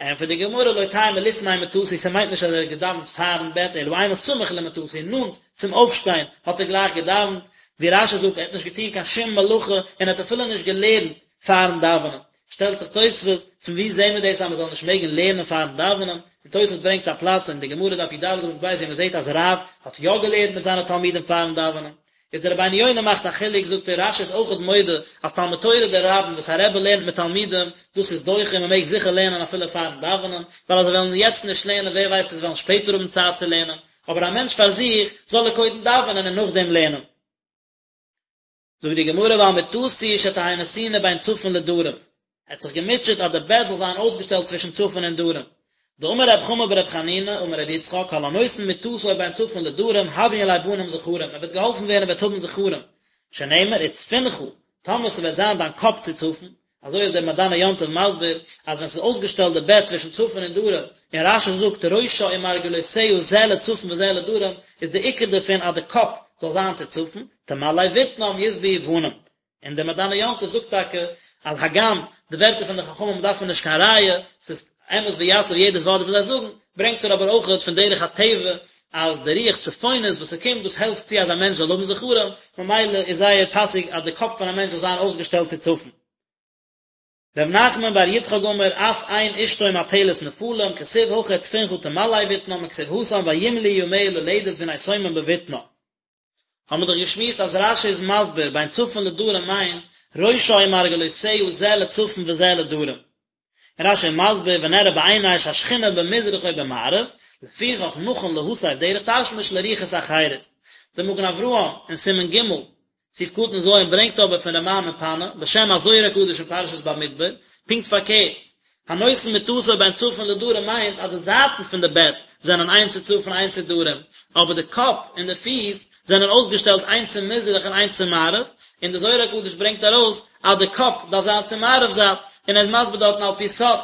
ענטפערט די גמרא לא תימא לפני מטתי, ס'מיינט נישט אז ער האט געדאווענט פארן בעט, אלא אימא סמוך למטתי, נאנט צום אויפשטיין האט ער גלייך געדאווענט, ווי רש"י זאגט, ער האט נישט געטון קיין שום מלאכה און ער האט אפילו נישט געלערנט פארן דאווענען. שטעלט זיך תוספות, פון וואו זעהן מיר דאס אז מען זאל נישט מעגן לערנען פארן דאווענען? און תוספות ברענגט א פלאץ אין די גמרא דף י"ד עמוד ב' ווי מען זעהט אז רב האט יא געלערנט מיט זיינע תלמידים פארן דאווענען. איז דער רבינו יונה מאכט א חילוק, זאגט ער, רש"י איז אויכעט מודה אז תלמוד תורה דרבים וואס א רבי לערנט מיט תלמידים, דאס איז דוחה און מען מעג זיכער לערנען אפילו פארן דאווענען, ווייל אז זיי וועלן יעצט נישט לערנען ווער ווייסט צו זיי וועלן שפעטער האבן צייט צו לערנען, אבער א מענטש פאר זיך זאל ער קודם דאווענען און נאכדעם לערנען. זאגט די גמרא ועל מטתי שתהא נתונה בין צפון לדרום, ער האט זיך געמוטשעט אז די בעט זאל זיין אויסגעשטעלט צווישן צפון און דרום, דאמר רב חמא ברב חנינא אמר רבי יצחק כל הנותן מטתו בין צפון לדרום הויין ליה בנים זכרים, ער וועט געהאלפן ווערן ער וועט האבן זכרים, שנאמר וצפונך, טאמער ס'וועט זיין דיין קאפ צו צפון, אזוי איז דער מעדני יום טוב מסביר אז ווען ס'איז אויסגעשטעלט די בעט צווישן צפון און דרום, און רש"י זאגט ראשה ומרגלותיה זה לצפון וזה לדרום, איז די עיקר דערפון אז די קאפ זאל זיין צו צפון, תמלא בטנם ישבעו בנים. און דער מעדני יום טוב זאגט טאקע אז הגם די ווערטער פון די חכמים דארף מען נישט קיין ראיה, ס'איז אמת ויציב יעדעס ווארט וואס זיי זאגן, ברענגט ער אבער אויכעט פון דרך הטבע אז די רוח צפונית וואס ס'קומט דאס העלפט צו אז א מענטש זאל האבן זכרים, ממילא איז זייער פאסיג אז די קאפ פון א מענטש זאל זיין אויסגעשטעלט צו צפון. ר' נחמן בר יצחק אמר אף אין אשתו מפלת נפלים, כתיב הכא וצפונך תמלא בטנם וכתיב התם וימלאו ימיה ללדת והנה שומם בבטנה. האבן מיר דאך געשמועסט אז רש"י איז מסביר בין צפון לדרום מיינט ראשה ומרגלותיה זה לצפון וזה לדרום. און רש"י איז מסביר ונראה בעיני שהשכינה במזרח או במערב, לפיכך נכון להסב דרך תשמיש לרוחות אחרות. דער מגן אברהם אין סימן ג'. סעיף קטן ז' ברענגט אבער פון רמ"ע מפאנו, בשם הזוהר הקדוש אין פרשת במדבר, פונקט פארקערט, הנותן מטתו בין צפון לדרום מיינט אז די זייטן פון די בעט זענען איינס צו צפון איינס צו דרום, אבער די קאפ און די פיס זענען אויסגעשטעלט איינס צו מזרח און איינס צו מערב, און די זוהר הקדוש ברענגט ארויס אז די קאפ דארף זיין צו מערב זייט, און ער איז מסביר דארטן על פי סוד.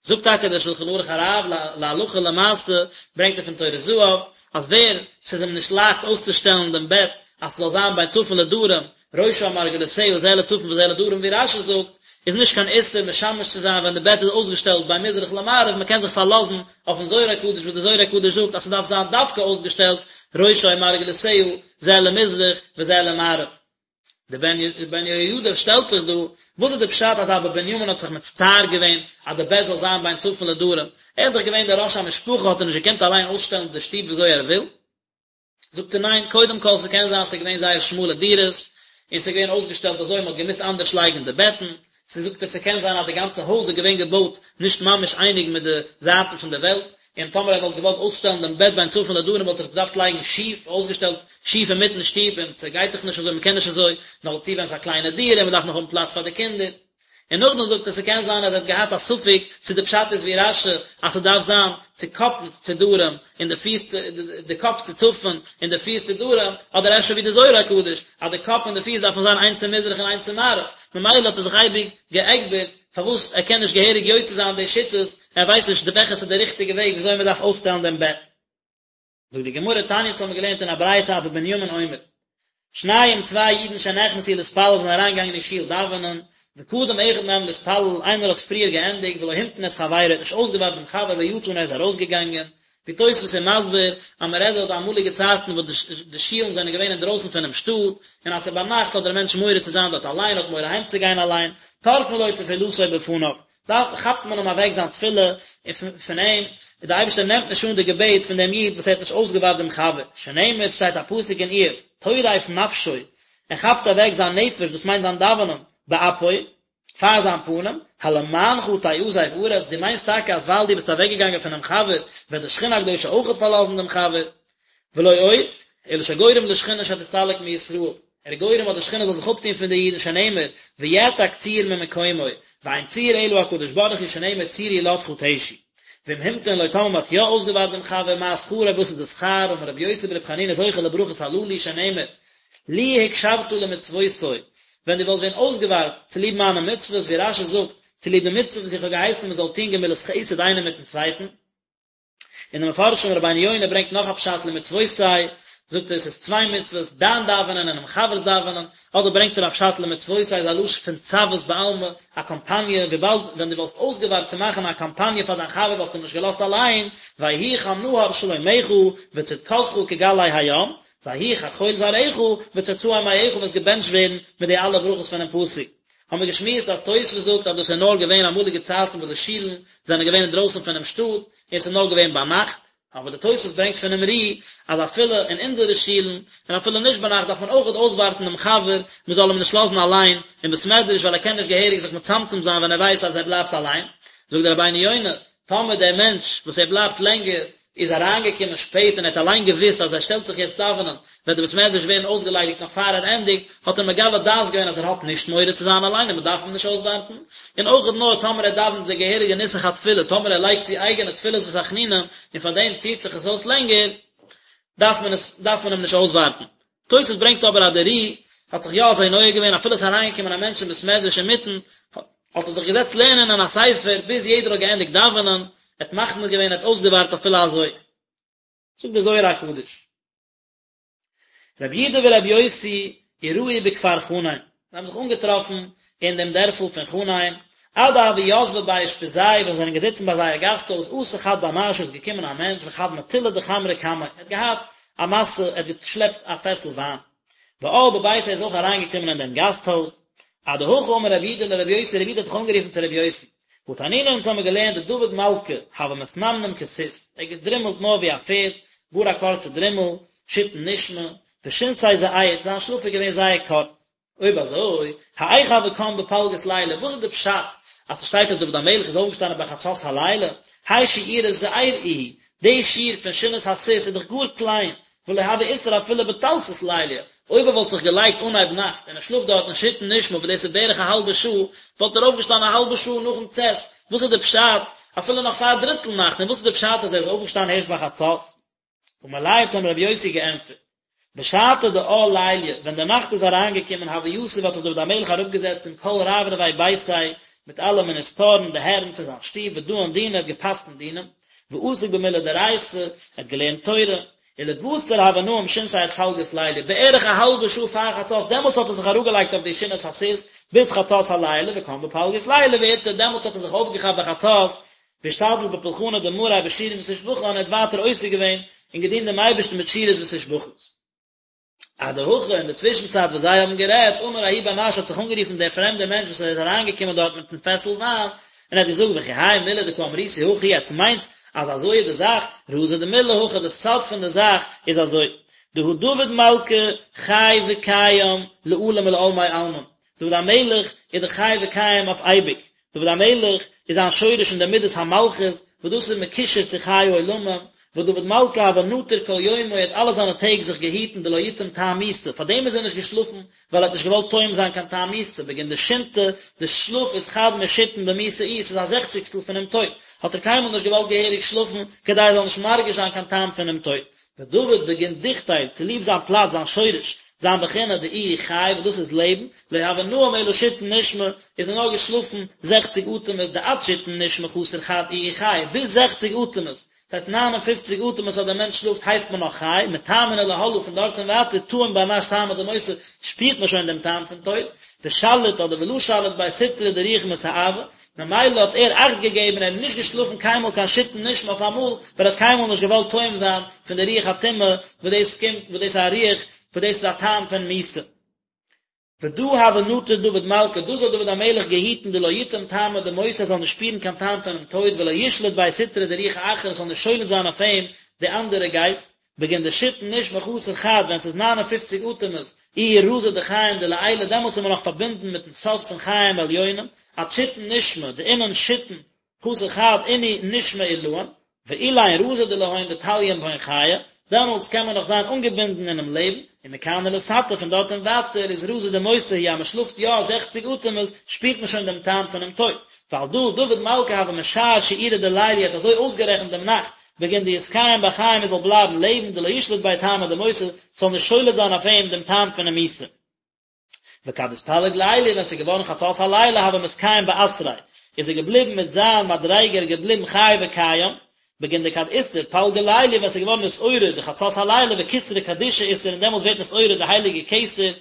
זאגט טאקע דער שלחן ערוך הרב להלכה למעשה, ברענגט ער פון טורי זהב, אז ווער ס'איז אים נישט לייכט אויסצושטעלן דעם בעט אז ס'זאל זיין בין צפון לדרום, ראשה ומרגלותיה זה לצפון וזה לדרום ווי רש"י זאגט, איז נישט קיין איסור משמש צו זיין ווען די בעט איז אויסגעשטעלט בין מזרח למערב, מ'קען זיך פארלאזן אויפן זוהר הקדוש וואס דער זוהר הקדוש זאגט אז ס'דארף זיין דווקא אויסגעשטעלט ראשה ומרגלותיה זה למזרח וזה למערב. דער בן יהוידע שטעלט זיך דא, וואס איז די פשט אז אבא בנימין האט זיך מצטער געווען אז די בעט זאל זיין בין צפון לדרום, ער איז דאך געווען דער ראש המשפחה האט ער נישט געקענט אליין אויסשטעלן די שטוב וויאזוי ער וויל? זאגט ער ניין, קודם כל ס'קען זיין ס'איז געווען זייער שמאלע דירות, און ס'איז געווען אויסגעשטעלט אזוי מ'האט געמוזט אנדערש לייגן די בעטן, ס'זאגט ער ס'קען זיין אז די גאנצע הויז איז געווען געבויט נישט ממש אייניג מיט די זייטן פון די וועלט, און טאמער ער וואלט געוואלט אויסשטעלן דעם בעט בין צפון לדרום וואלט ער עס געדארפט לייגן שיף, אויסגעשטעלט שיף אינמיטן שטוב, און ס'גייט דאך נישט אזוי, מ'קען נישט אזוי, נאכדערצו ווען ס'איז א קליינע דירה און מ'דארף נאך האבן פלאץ פאר די קינדער. און נאכדעם זאגט ער ס'קען זיין אז ער האט געהאט א ספק צו די פשט איז ווי רש"י אז ס'דארף זיין צו קאפנס צו דרום און די פיס צו די קאפ צו צפון און די פיס צו דרום, אדער אפשר ווי די זוהר הקדוש אז די קאפ און די פיס דארפן זיין איינס צו מזרח און איינס צו מערב, ממילא האט ער זיך אייביג געעגבערט פארוואס ער קען נישט געהעריג יוצא זיין די שיטות, ער ווייסט נישט וועלכע ס'איז די ריכטיגע וועג וויאזוי מ'דארף אויסשטעלן דעם בעט. זאגט די גמרא תניא אונז האבן געלערנט אין א ברייתא אבא בנימין אומר שניים צוויי אידן שנכנסו להתפלל זענען אריינגעגאנגען אין שול דאווענען וקדם אחד מהם להתפלל איינער האט פריער געענדיגט ולא המתין את חברו ער האט נישט אויסגעווארט דעם חבר ויצא און ער איז ארויסגעגאנגען ווי תוספות איז מסביר אז מען רעדט דארט אמאליגע צייטן וואס די שולן זענען געווען אינדרויסן פונעם שטאט און אז ס'איז ביינאכט האט דער מענטש מורא צו זיין דארט אליין האט מורא אהיימצוגיין אליין טורפין לו תפילתו בפניו דאן כאפט מען אים אוועק זיין תפילה פון אים, און דער אייבערשטער נעמט נישט אן די געבעט פון דעם איד וואס ער האט נישט אויסגעווארט דעם חבר, שנאמר, שטייט א פסוק אין איוב, טורף נפשו, ער כאפט אוועק זיין נפש, דאס מיינט זיין דאווענען, באפו, פאר זיין פנים, הלמענך תעזב ארץ, דו מיינסט טאקע אז ווייל דו ביסט אוועקגעגאנגען פונעם חבר, וועט די שכינה הקדושה אויכעט פארלאזן דעם חבר? ולא עוד, אלא שגורם לשכינה שתסתלק מישראל, ער איז גורם אז די שכינה זאל זיך אפטון פון די אידן שנאמר, ויעתק צור ממקומו, ואין צור אלא הקדוש ברוך הוא שנאמר צור ילדך תשי. ואם המתין לו טאמער מ'האט יא אויסגעווארט דעם חבר מה שכרו וואס איז די שכר, אמר רבי יוסי ברבי חנינא זוכה לברכות הללו שנאמר, לו הקשבת למצוותי, ווען דו וואלסט ווען אויסגעווארט צוליב מיינע מצוות, ווי רש"י זאגט, צוליב די מצוה וואס איך האב געהייסן מען זאל טון גמילות חסד איינער מיטן צווייטן, און די מפרשים רבינו יונה ברענגט נאך א פשט למצוותי, זאגט ער עס איז צוויי מצוות, דיין דאווענען און דעם חבר'ס דאווענען, אדער ברענגט ער א פשט למצוותי איז א לשון פון צוות בעלמא, א קאמפאניע, וויבאלד ווען דו וואלסט אויסגעווארט צו מאכן א קאמפאניע פאר דיין חבר וואלסטו אים נישט געלאזט אליין, ויהי כנהר שלומך וצדקתך כגלי הים, ויהי כחול זרעך וצאצאי מעיך וועסט געבענטשט ווערן מיט די אלע ברכות פונעם פסוק. האבן מיר געשמועסט אז תוספות זאגט אז דאס איז נאר געווען אמאליגע צייטן וואס די שילן זענען געווען אינדרויסן פונעם שטאט און עס איז נאר געווען ביינאכט, אבער די תוספות ברענגט פונעם ר"י אז אפילו אין אונזערע שילן און אפילו נישט ביינאכט דארף מען אויכעט אויסווארטן דעם חבר מען זאל אים נישט לאזן אליין אין בית מדרש ווייל ער קען נישט געהעריג זיך מצמצם זיין ווען ער ווייסט אז ער בלייבט אליין, זאגט דער רבינו יונה, טאמער דער מענטש וואס ער בלייבט לענגער איז אריינגעקומען שפעט און ער האט אליין געוואוסט אז ער שטעלט זיך יעצט דאווענען וועט די בית מדרש ווערן אויסגעליידיגט נאך פאר ער ענדיגט, האט ער מגלה דעת געווען אז ער האט נישט מורא צו זיין אליין און מען דארף אים נישט אויסווארטן, און אויך נאר טאמער ער דאווענט די געהעריגע נוסח התפילה, טאמער ער לייגט צו אייגענע תפילות ותחנונים און פאר דעם ציט זיך עס אויס לענגער, דארף מען עס דארף מען אים נישט אויסווארטן. תוס' ברענגט אבער אז דער ר"י האט זיך יא אזוי נוהג געווען אפילו עס איז אריינגעקומען א מענטש אין בית מדרש אינמיטן, האט ער זיך געזעצט לערנען אין א ספר ביז יעדער האט געענדיגט דאווענען, ער האט מחמיר געווען ער האט אויסגעווארט אפילו אזוי. זאגט דער זוהר הקדוש. רבי יהודה ורבי יוסי אירעו בכפר חנין, זיי האבן זיך אנגעטראפן אין דעם דערפל פון חנין, עד דהוו יתבי בי אושפיזייהו ווען זיי זענען געזיצן ביי זייער גאסט הויז, אתא חד בר נשא איז געקומען א מענטש וחד מטולא דחמרא קמיה, ער האט געהאט א משא, ער האט געשלעפט א פעסל וויין. ועאל בביתיה איז אויך אריינגעקומען אין דעם גאסט הויז. אדהכי אמר רבי יהודה לרבי יוסי, רבי יהודה האט זיך אנגערופן צו רבי יוסי, והא תנינא אונז האמיר געלערנט דדוד מלכא הוה מתנמנם כסוס, ער האט געדרימלט נאר ווי א פערד, גאר א קורצע דרימל, שיתין נשמי, ושינתיה זעיר, זיין שלאף איז געווען זייער קורץ. אויב אזוי, האיך הוה קם בפלגות ליליא, וואס איז די פשט אז ס'שטייט אז דוד המלך איז אויפגעשטאנען ביי חצות הלילה, האי שיעורא זעיר איהו, די שיעור פון שינת הסוס איז דאך גאר קליין, ולא הוה אתער אפילו בתלתא ליליא, אויב ער וואלט זיך געלייגט אנהייב נאכט און ער שלאפט דארטן שיתין נשמי וואס דאס איז בערך א האלבע שעה, וואלט ער אויפגעשטאנען א האלבע שעה נאכן צאת, וואס איז די פשט אפילו נאך פאר דריטל נאכט, און וואס איז די פשט אז ער איז אויפגעשטאנען הערשט ביי חצות? אמר ליה האט אים רבי יוסי געענטפערט, בשעתא דעאל ליליא, ווען די נאכט איז אריינגעקומען הוה יתיב האט זיך דוד המלך אראפגעזעצט עם כל רברבי ביתיה מיט אלע מיניסטארן די הערן פון זיין שטוב ודאין דינא ער האט גע'פסק'נט דינים, ועסיק במילי דאורייתא, ער האט געלערנט תורה, ולבתר הוה נאים שינתיה עד פלגות ליליא, בערך א האלבע שעה פאר חצות, דעמאלטס האט ער זיך אראפגעלייגט אויף די שינת הסוס, ביז חצות הלילה, וקם בפלגות ליליא ואתער, דעמאלטס האט ער זיך אויפגעכאפט ביי חצות, ואשתדיל בפולחנא דמאריה בשירין ותושבחן, ער האט ווייטער עוסק געווען און געדינט דעם אייבערשטן מיט שירות ותשבחות. אדהכי, אין די צווישן צייט וואס זיי האבן גערעדט, אמר ההוא בר נש האט זיך אנגערופן דער פרעמדער מענטש וואס איז אריינגעקומען דארט מיטן פעסל וויין, און ער האט געזאגט וכי האי מילי דקא אמריתו הכי, עטס מיינטס אז אזוי איז די זאך, רזא דמילה הכי, די סוד פון די זאך איז אזוי, דהא דוד מלכא חי וקיים לעלם ולעלמי עלמין, דוד המלך איז דאך חי וקיים אויף אייביג, דוד המלך איז זיין שורש אין די מידת המלכות, וואס דאס איז מקושר צו חיי עולמים, ודוד מלכא הוה נטיר כל יומוי האט אלע זיינע טעג זיך געהיטן דלא יטעום טעם מיתה, פארדעם איז ער נישט געשלאפן, ווייל ער האט נישט געוואלט טועם זיין קיין טעם מיתה, בגין דשינתא, די שלאף איז חד משיתין במיתה איהי, ס'איז א זעכציגסטל פונעם טויט, האט ער קיינמאל נישט געוואלט געהעריג שלאפן, כדי ער זאל נישט מרגיש זיין קיין טעם פונעם טויט. ודוד בגין דוכתיה, צוליב זיין פלאץ, זיין שורש, זיין בחינה דאיהו חי, וואס דאס איז לעבן, לא הוה נאים אלא שיתין נשמי, איז ער נאר געשלאפן זעכציג אטעמעס, דעד שיתין נשמי חסר חד איהו חי, ביז זעכציג אטעמעס, דאס הייסט ניין און פופציג אטעמעס אז דער מענטש שלאפט הייסט מען נאך חי, מתמן ולהלאה פון דארט און ווייטער טעים בר נש טעמא דמותא שפירט מען שוין דעם טעם פון טויט, ושליט אדער ולא שליט ביה סטרא דרוח מסאבא, ממילא האט ער אכט געגעבן, ער איז נישט געשלאפן קיינמאל קיין שיתין נשמי אויף אמאל, ווייל ער האט קיינמאל נישט געוואלט טועם זיין פון די רוח הטומאה וואס דאס קומט, וואס דאס איז א רוח, וואס דאס איז א טעם פון מיתה. ודא הוה נטיר דוד מלכא, דאס האט דוד המלך געהיטן דלא יטעם טעמא דמותא ער זאל נישט שפירן קיין טעם פונעם טויט ולא ישלוט ביה סטרא דרוחא אחרא עס זאל נישט שולט זיין אויף אים די אנדערע גייסט, בגין דשיתין נשמי חסר חד ווען ס'איז ניין און פופציג אטעמעס איהו רזא דחיים דלעילא דעמאלטס איז מען נאך פארבינדן מיטן סוד פון חיים עליונים, עד שיתין נשמי דאינון שיתין חסר חד אינהו נשמי עילאין, ואלין רזא דלהון דתליין בהון חיי, דעמאלטס קען מען נאך זיין אנגעבינדן אינעם לעבן, ומכאן ולתתא פון דארט און ווייטער איז רזא דמותא הוא אז מען שלאפט יא זעכציג אטעמעס שפירט מען שוין דעם טעם פונעם טויט, ועל דא דוד מלכא הוה משער שיעורא דליליא האט אזוי אויסגערעכנט דעם נאכט בגין דיתקיים בחיים ער זאל בלייבן לעבן דלא ישלוט ביה טעמא דמותא ס'זאל נישט שולט זיין אויף אים דעם טעם פונעם מיתה. וכד אתפלג ליליא ווען ס'איז געווארן חצות הלילה הוה מתקיים באתריה איז ער געבליבן מיט זיין מדריגה ער איז געבליבן חי וקיים, בגין דכד אתער פלגא ליליא ווען ס'איז געווארן נתעורר די חצות הלילה וכתרא קדישא אתער און דעמאלטס ווערט נתעורר די הייליגע כתר,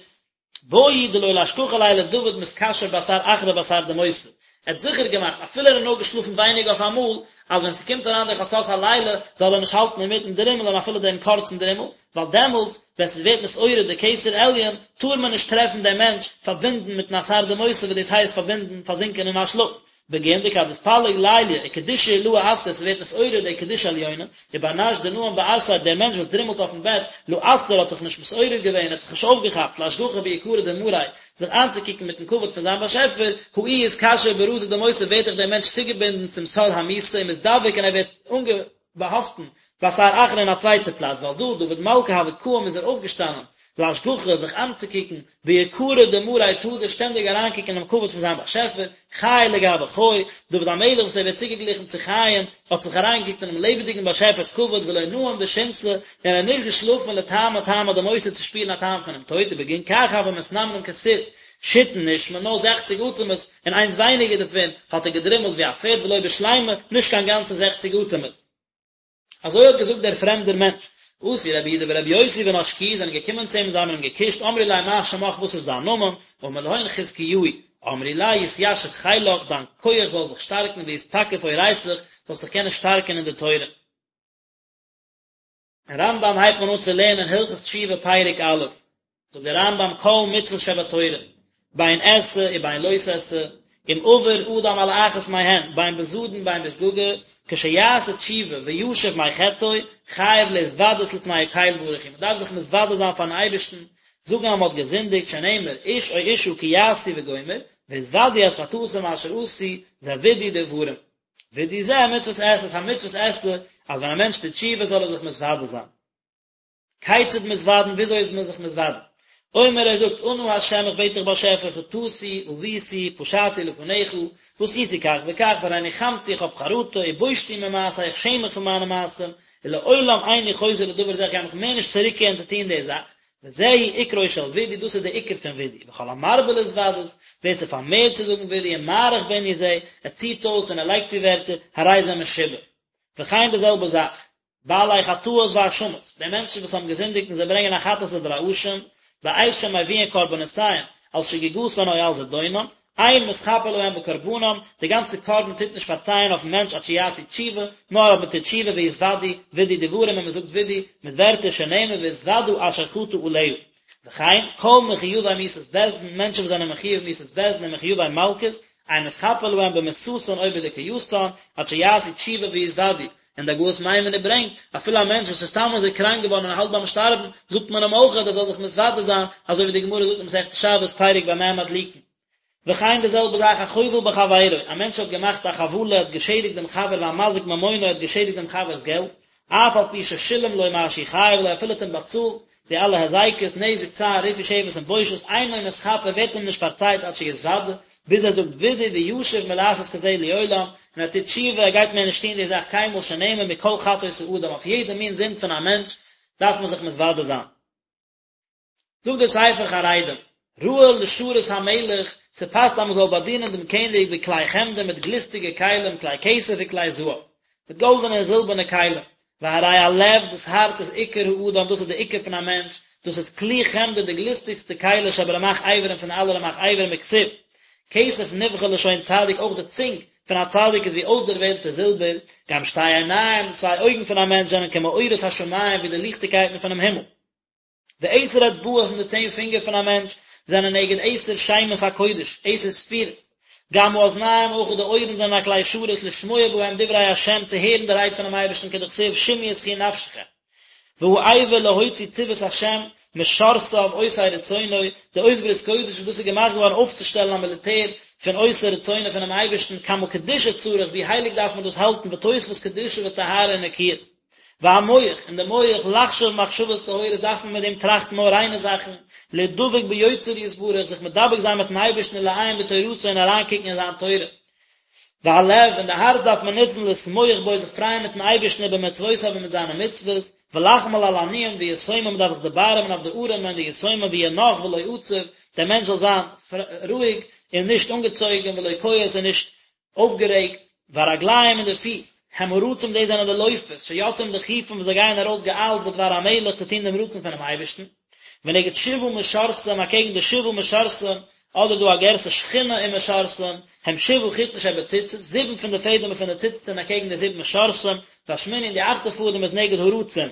בעי דלא לאשכחא ליה לדוד מתקשר באתר אחרא באתר דמותא, ער האט זיכער געמאכט אפילו ער האט נאר געשלאפן ווייניג אויף אמאל, אז ווען ס'קומט אריין די חצות הלילה זאל ער נישט האלטן אינמיטן דרימלען אפילו דעם קורצן דרימל, ווייל דעמאלטס ווען ס'ווערט נתעורר די כתר עליון טאר מען נישט טרעפן דעם מענטש פארבינדן מיטן אתר דמותא וואס דאס הייסט פארבינדן פארזינקען אין א שלאף, בגין דכד אתפלג ליליא וקדושה עילאה אתער ס'ווערט נתעורר די קדושה עליונה, ובר נש דנאים באתריה דער מענטש וואס דרימלט אויפן בעט, לא אתער האט זיך נישט מתעורר געווען האט זיך נישט אויפגעכאפט לאשגחא ביקרא דמאריה זיך איינצוקוקן מיטן כבוד פון זיין באשעפער, הא איהו אתקשר ברזא דמותא ווערט דאך דער מענטש צוגעבינדן צום סוד המיתה ומתדבק און ער ווערט אנגעבאהאפטן באתר אחרא אין א צווייטע פלאץ ועל דא דוד מלכא הוה קאים איז ער אויפגעשטאנען לאשגחא זיך איינצוקוקן ביקרא דמאריה תדיר שטענדיג אריינקוקן אינעם כבוד פון זיין באשעפער, חי לגבי חי, דוד המלך וואס ער ווערט צוגעגליכן צו חיים, האט זיך אריינגעקוקט אינעם לעבעדיגן באשעפער'ס כבוד ולא נאים בשינתא, און ער האט נישט געשלאפן לטעמא טעמא דמותא צו שפירן א טעם פונעם טויט, ובגין כך הוה מתנמנם כסוס שיתין נשמי, נאר זעכציג אטעמעס, און איינס ווייניגער דערפון, האט ער געדרימלט ווי א פערד ולא בשלימא, נישט קיין גאנצע זעכציג אטעמעס. אזוי האט געזאגט דער פרעמדער מענטש. אתו רבי יהודה ורבי יוסי ונשקוהו זענען געקומען צו אים און זיי האבן אים געקושט, אמרו ליה מה שמך וואס איז דיין נאמען, אמר להון חזקיהו, אמרו ליה יתיישר חילך דיין כח זאל זיך שטארקן ויתתקף אורייתך זאלסט דיך קענען שטארקן אין די תורה. אין רמב"ם הייבט מען אן צו לערנען הלכות תשובה פרק א', זאגט דער רמב"ם כל מצוות שבתורה, בין עשה ובין לא תעשה, אם עבר אדם על אחת מהן, בין בזדון בין בשגגה, כשיעשה תשובה וישוב מחטאו, חייב להתוודות לפני הקל ברוך הוא, מען דארף זיך מתוודה זיין פארן אייבערשטן, זאגן אז מען האט געזינדיגט, שנאמר, איש או אשה כי יעשו וגומר, והתודו את חטאתם אשר עשו, זה וידוי דברים. וידוי זה מצוות עשה, ס'איז א מצוות עשה, אז ווען א מענטש טוט תשובה זאל ער זיך מתוודה זיין. כיצד מתוודין וויאזוי איז מען זיך מתוודה? אומר ער זאגט אנא ה' איך בעט דיך באשעפער חטאתי עויתי פשעתי לפניך ועשיתי כך וכך והרי ניחמתי איך האב חרטה ובושתי ממעשי איך שעם מיך פון מיינע מעשים ולעולם איני חוזר לדבר זה איך גיי מיך מער נישט צוריקקערן צו טון די זאך וזהו עיקרו של וידוי דאס איז די עיקר פון וידוי וכל המרבה להתוודות ווער ס'פארמערט צו זאגן וידוי ומאריך בענין זה ער ציט אויס און ער לייגט צו ווערטער הרי זה משובח וכן די זעלבע זאך בעלי חטאות והאשמות, די מענטשן וואס האבן געזינדיגט און זיי ברענגען א חטאת אדער א אשם, בעת שמביאין קרבנותיהם, על שגגתן או על זדונם, אין מתכפר להם בקרבנם, די גאנצע קרבן טוט נישט פארצייען אויפן מענטש עד שיעשו תשובה, נאר אויב מען טוט תשובה ויתוודו וידוי דברים און מען זאגט וידוי מיט ווערטער שנאמר והתודו אשר חטא עליה. וכן, כל מחויבי מיתת בית דין, מענטשן וואס זענען מחויב מיתת בית דין און מחויבי מלקות, אין מתכפר להם במיתתן או בדוכיותן, עד שיעשו תשובה ויתוודו, און די הגהות מיימוניות ברענגט, אפילו א מענטש וואס איז סתם אזוי קראנק געווארן און האלט ביים שטארבן, זאגט מען אים אויך אז ער זאל זיך מתוודה זיין, אזוי ווי די גמרא זאגט אין מסכת שבת פרק במה מדליקין. וכן די זעלבע זאך החובל בחבירו, א מענטש האט געמאכט א חבלה, האט געשעדיגט דעם חבר והמזיק ממונו, האט געשעדיגט דעם חבר'ס געלט, אף על פי ששילם לו מה שהוא חייב לו, אפילו האט אים באצאלט די אלע הזיקות, נזק, צער, ריפוי שבת און בושת, אינו מתכפר, ווערט אים נישט פארצייט עד שיתוודה, ביז ער זאגט וידוי וישוב מלעשות כזה לעולם, און ער טוט תשובה, ער גייט מער נישט טון די זאך קיינמאל שנאמר מכל חטאות האדם, אויף יעדע מין זינד פון א מענטש דארף מען זיך מתוודה זיין. זאגט דער ספר חרדים, ראוי לשרת המלך, ס'פאסט אז מ'זאל באדינען דעם קעניג בכלי חמדה מיט גליסטיגע כלים, כלי כסף וכלי זהב, מיט גאלדענע און זילבערנע כלים, והרי הלב, דאס הארץ איז עיקר האדם, דאס איז די עיקר פון א מענטש, דאס איז כלי חמדה די גליסטיגסטע כלי שברמ"ח אברים פון אלע רמ"ח אברים וכתיב, כסף נבחר לשון צדיק אויך די צונג פון א צדיק איז ווי אויסדערוועלטע זילבער, גם שתי עיניים, די צוויי אויגן פון א מענטש זענען כמאורות השמים ווי די ליכטיגקייטן פונעם הימל. ועשר אצבעות און די צען פינגער פון א מענטש זענען נגד עשר שמות הקודש, עשר ספירות. גם האזניים אויך די אויערן זענען א כלי שרת לשמוע בהם דברי השם צו הערן די רייד פונעם אייבערשטן כדכתיב שמעו ותחי נפשכם. והאבר להוציא צבאות השם משרתיו עושי רצונו, די אות ברית קודש וואס דאס איז געמאכט געווארן אויפצושטעלן א מיליטער פון עושי רצונו פונעם אייבערשטן כמה קדושה צריך ווי הייליג דארף מען דאס האלטן ותוספות קדושה וטהרה ונקיות. והמוח, און די מוח, לחשוב מחשבות טהורות דארף מען מיט דעם טראכטן נאר ריינע זאכן, להידבק ביוצר יתברך, זיך מדבק זיין מיטן אייבערשטן ולעיין בתורתו און אריינקוקן אין זיין תורה. והלב, און די הארץ דארף מען נוצן לשמוח בו, זיך פרייען מיטן אייבערשטן ובמצוותיו און מיט זיינע מצוות, ולחמול על עניים ויתומים, מען דארף זיך דערבארעמען אויף די ארעמע און די יתומים ויהיה נח ולא עצב, דער מענטש זאל זיין רואיג און נישט אנגעצויגן ולא כועס און נישט אויפגערעגט, והרגליים און די פיס, הם הרצים דאס זענען די לויפערס, שיוצאים דחופים וואס זיי גייען ארויס געאיילט בדבר המלך צו טון דעם רצון פונעם אייבערשטן, ונגד שבעה משרתים אקעגן די שבעה משרתים, אדער דא א גירסא שכינה ומשרתים, הם שבעה חוטין שבציצית, זיבן פון די פעדעמער פון די ציצית זענען אקעגן די זיבן משרתים, והשמיני און די אכטע פאדעם איז נגד הרצים.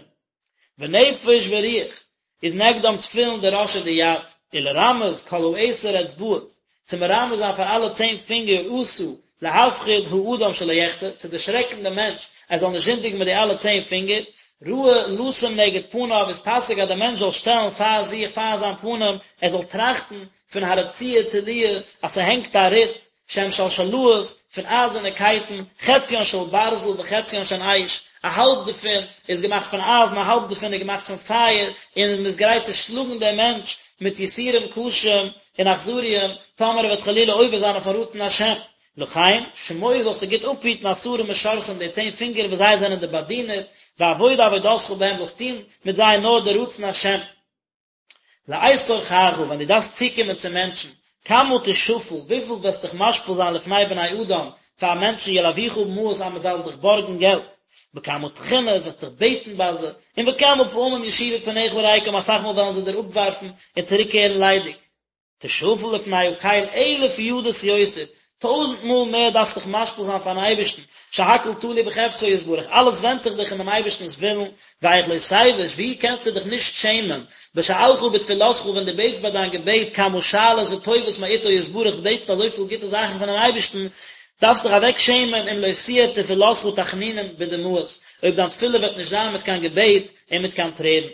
ונפש ורוח איז נגדם תפילין דראש ודיד, ולרמז כל העשר אצבעות, צו מרמז זיין פאר אלע צען פינגער עשה להפחיד האדם שלא יחטא, צו דערשרעקן דעם מענטש ער זאל נישט זינדיגן מיט די אלע צען פינגער, ראוי לשים נגד פניו איז פאסיג אז דער מענטש זאל שטעלן פאר זיך פאר זיין פנים, ער זאל טראכטן פון הרצועה תלויה אז ס'הענגט א ריט, שהם שלשלאות, פון אייזערנע קייטן, חציין של ברזל וחציין של אש, א האלב דערפון איז געמאכט פון אייזן, א האלב דערפון איז געמאכט פון פייער, און מען איז גרייט צו שלאגן דעם מענטש מיט יסורים קשים און אכזריים, טאמער ער וועט חלילה עובר זיין אויפן רצון השם. לכן, שמור זאלסטו גוט אפהיטן עשרה משרתים די צען פינגער וואס זיי זענען די באדינער, ועבוד עבודתך בהם זאלסט טון מיט זיי נאר די רצון השם. לעת צרכך, ווען דו דארפסט צוקומען צו מענטשן, כמה תשפל, וויפיל וועסט דיך משפיל זיין לפני בני אדם, פאר מענטשן ילווך מעות אז מען זאל דיך בארגן געלט, בכמה תחינות וועסט דיך בעטן ביי זיי, און וכמה פעמים ישיבו פניך ריקם, אסאך מאל וועלן זיי דיר אפווארפן און צוריקקערן ליידיג. תשפל לפני הקל אלף ידות יותר, טויזנט מאל מער דארפסט דיך משפיל זיין פארן אייבערשטן, שהכל תלוי בחפצו יתברך, אלעס ווענדט זיך דאך אין דעם אייבערשטנ'ס ווילן, ואיך לא תבוש, ווי קענסטו דיך נישט שעמען, בשאלך בתפילתך ווען דו בעטסט ביי דיין געבעט כמה שאלות וטובות מאיתו יתברך, דו בעטסט אזויפיל גוטע זאכן פונעם אייבערשטן, דארפסט דיך אוועק שעמען אם לא תהיה תפילתך תחנונים בדמעות, אויב דיין תפילה וועט נישט זיין מיט קיין געבעט און מיט קיין טרערן.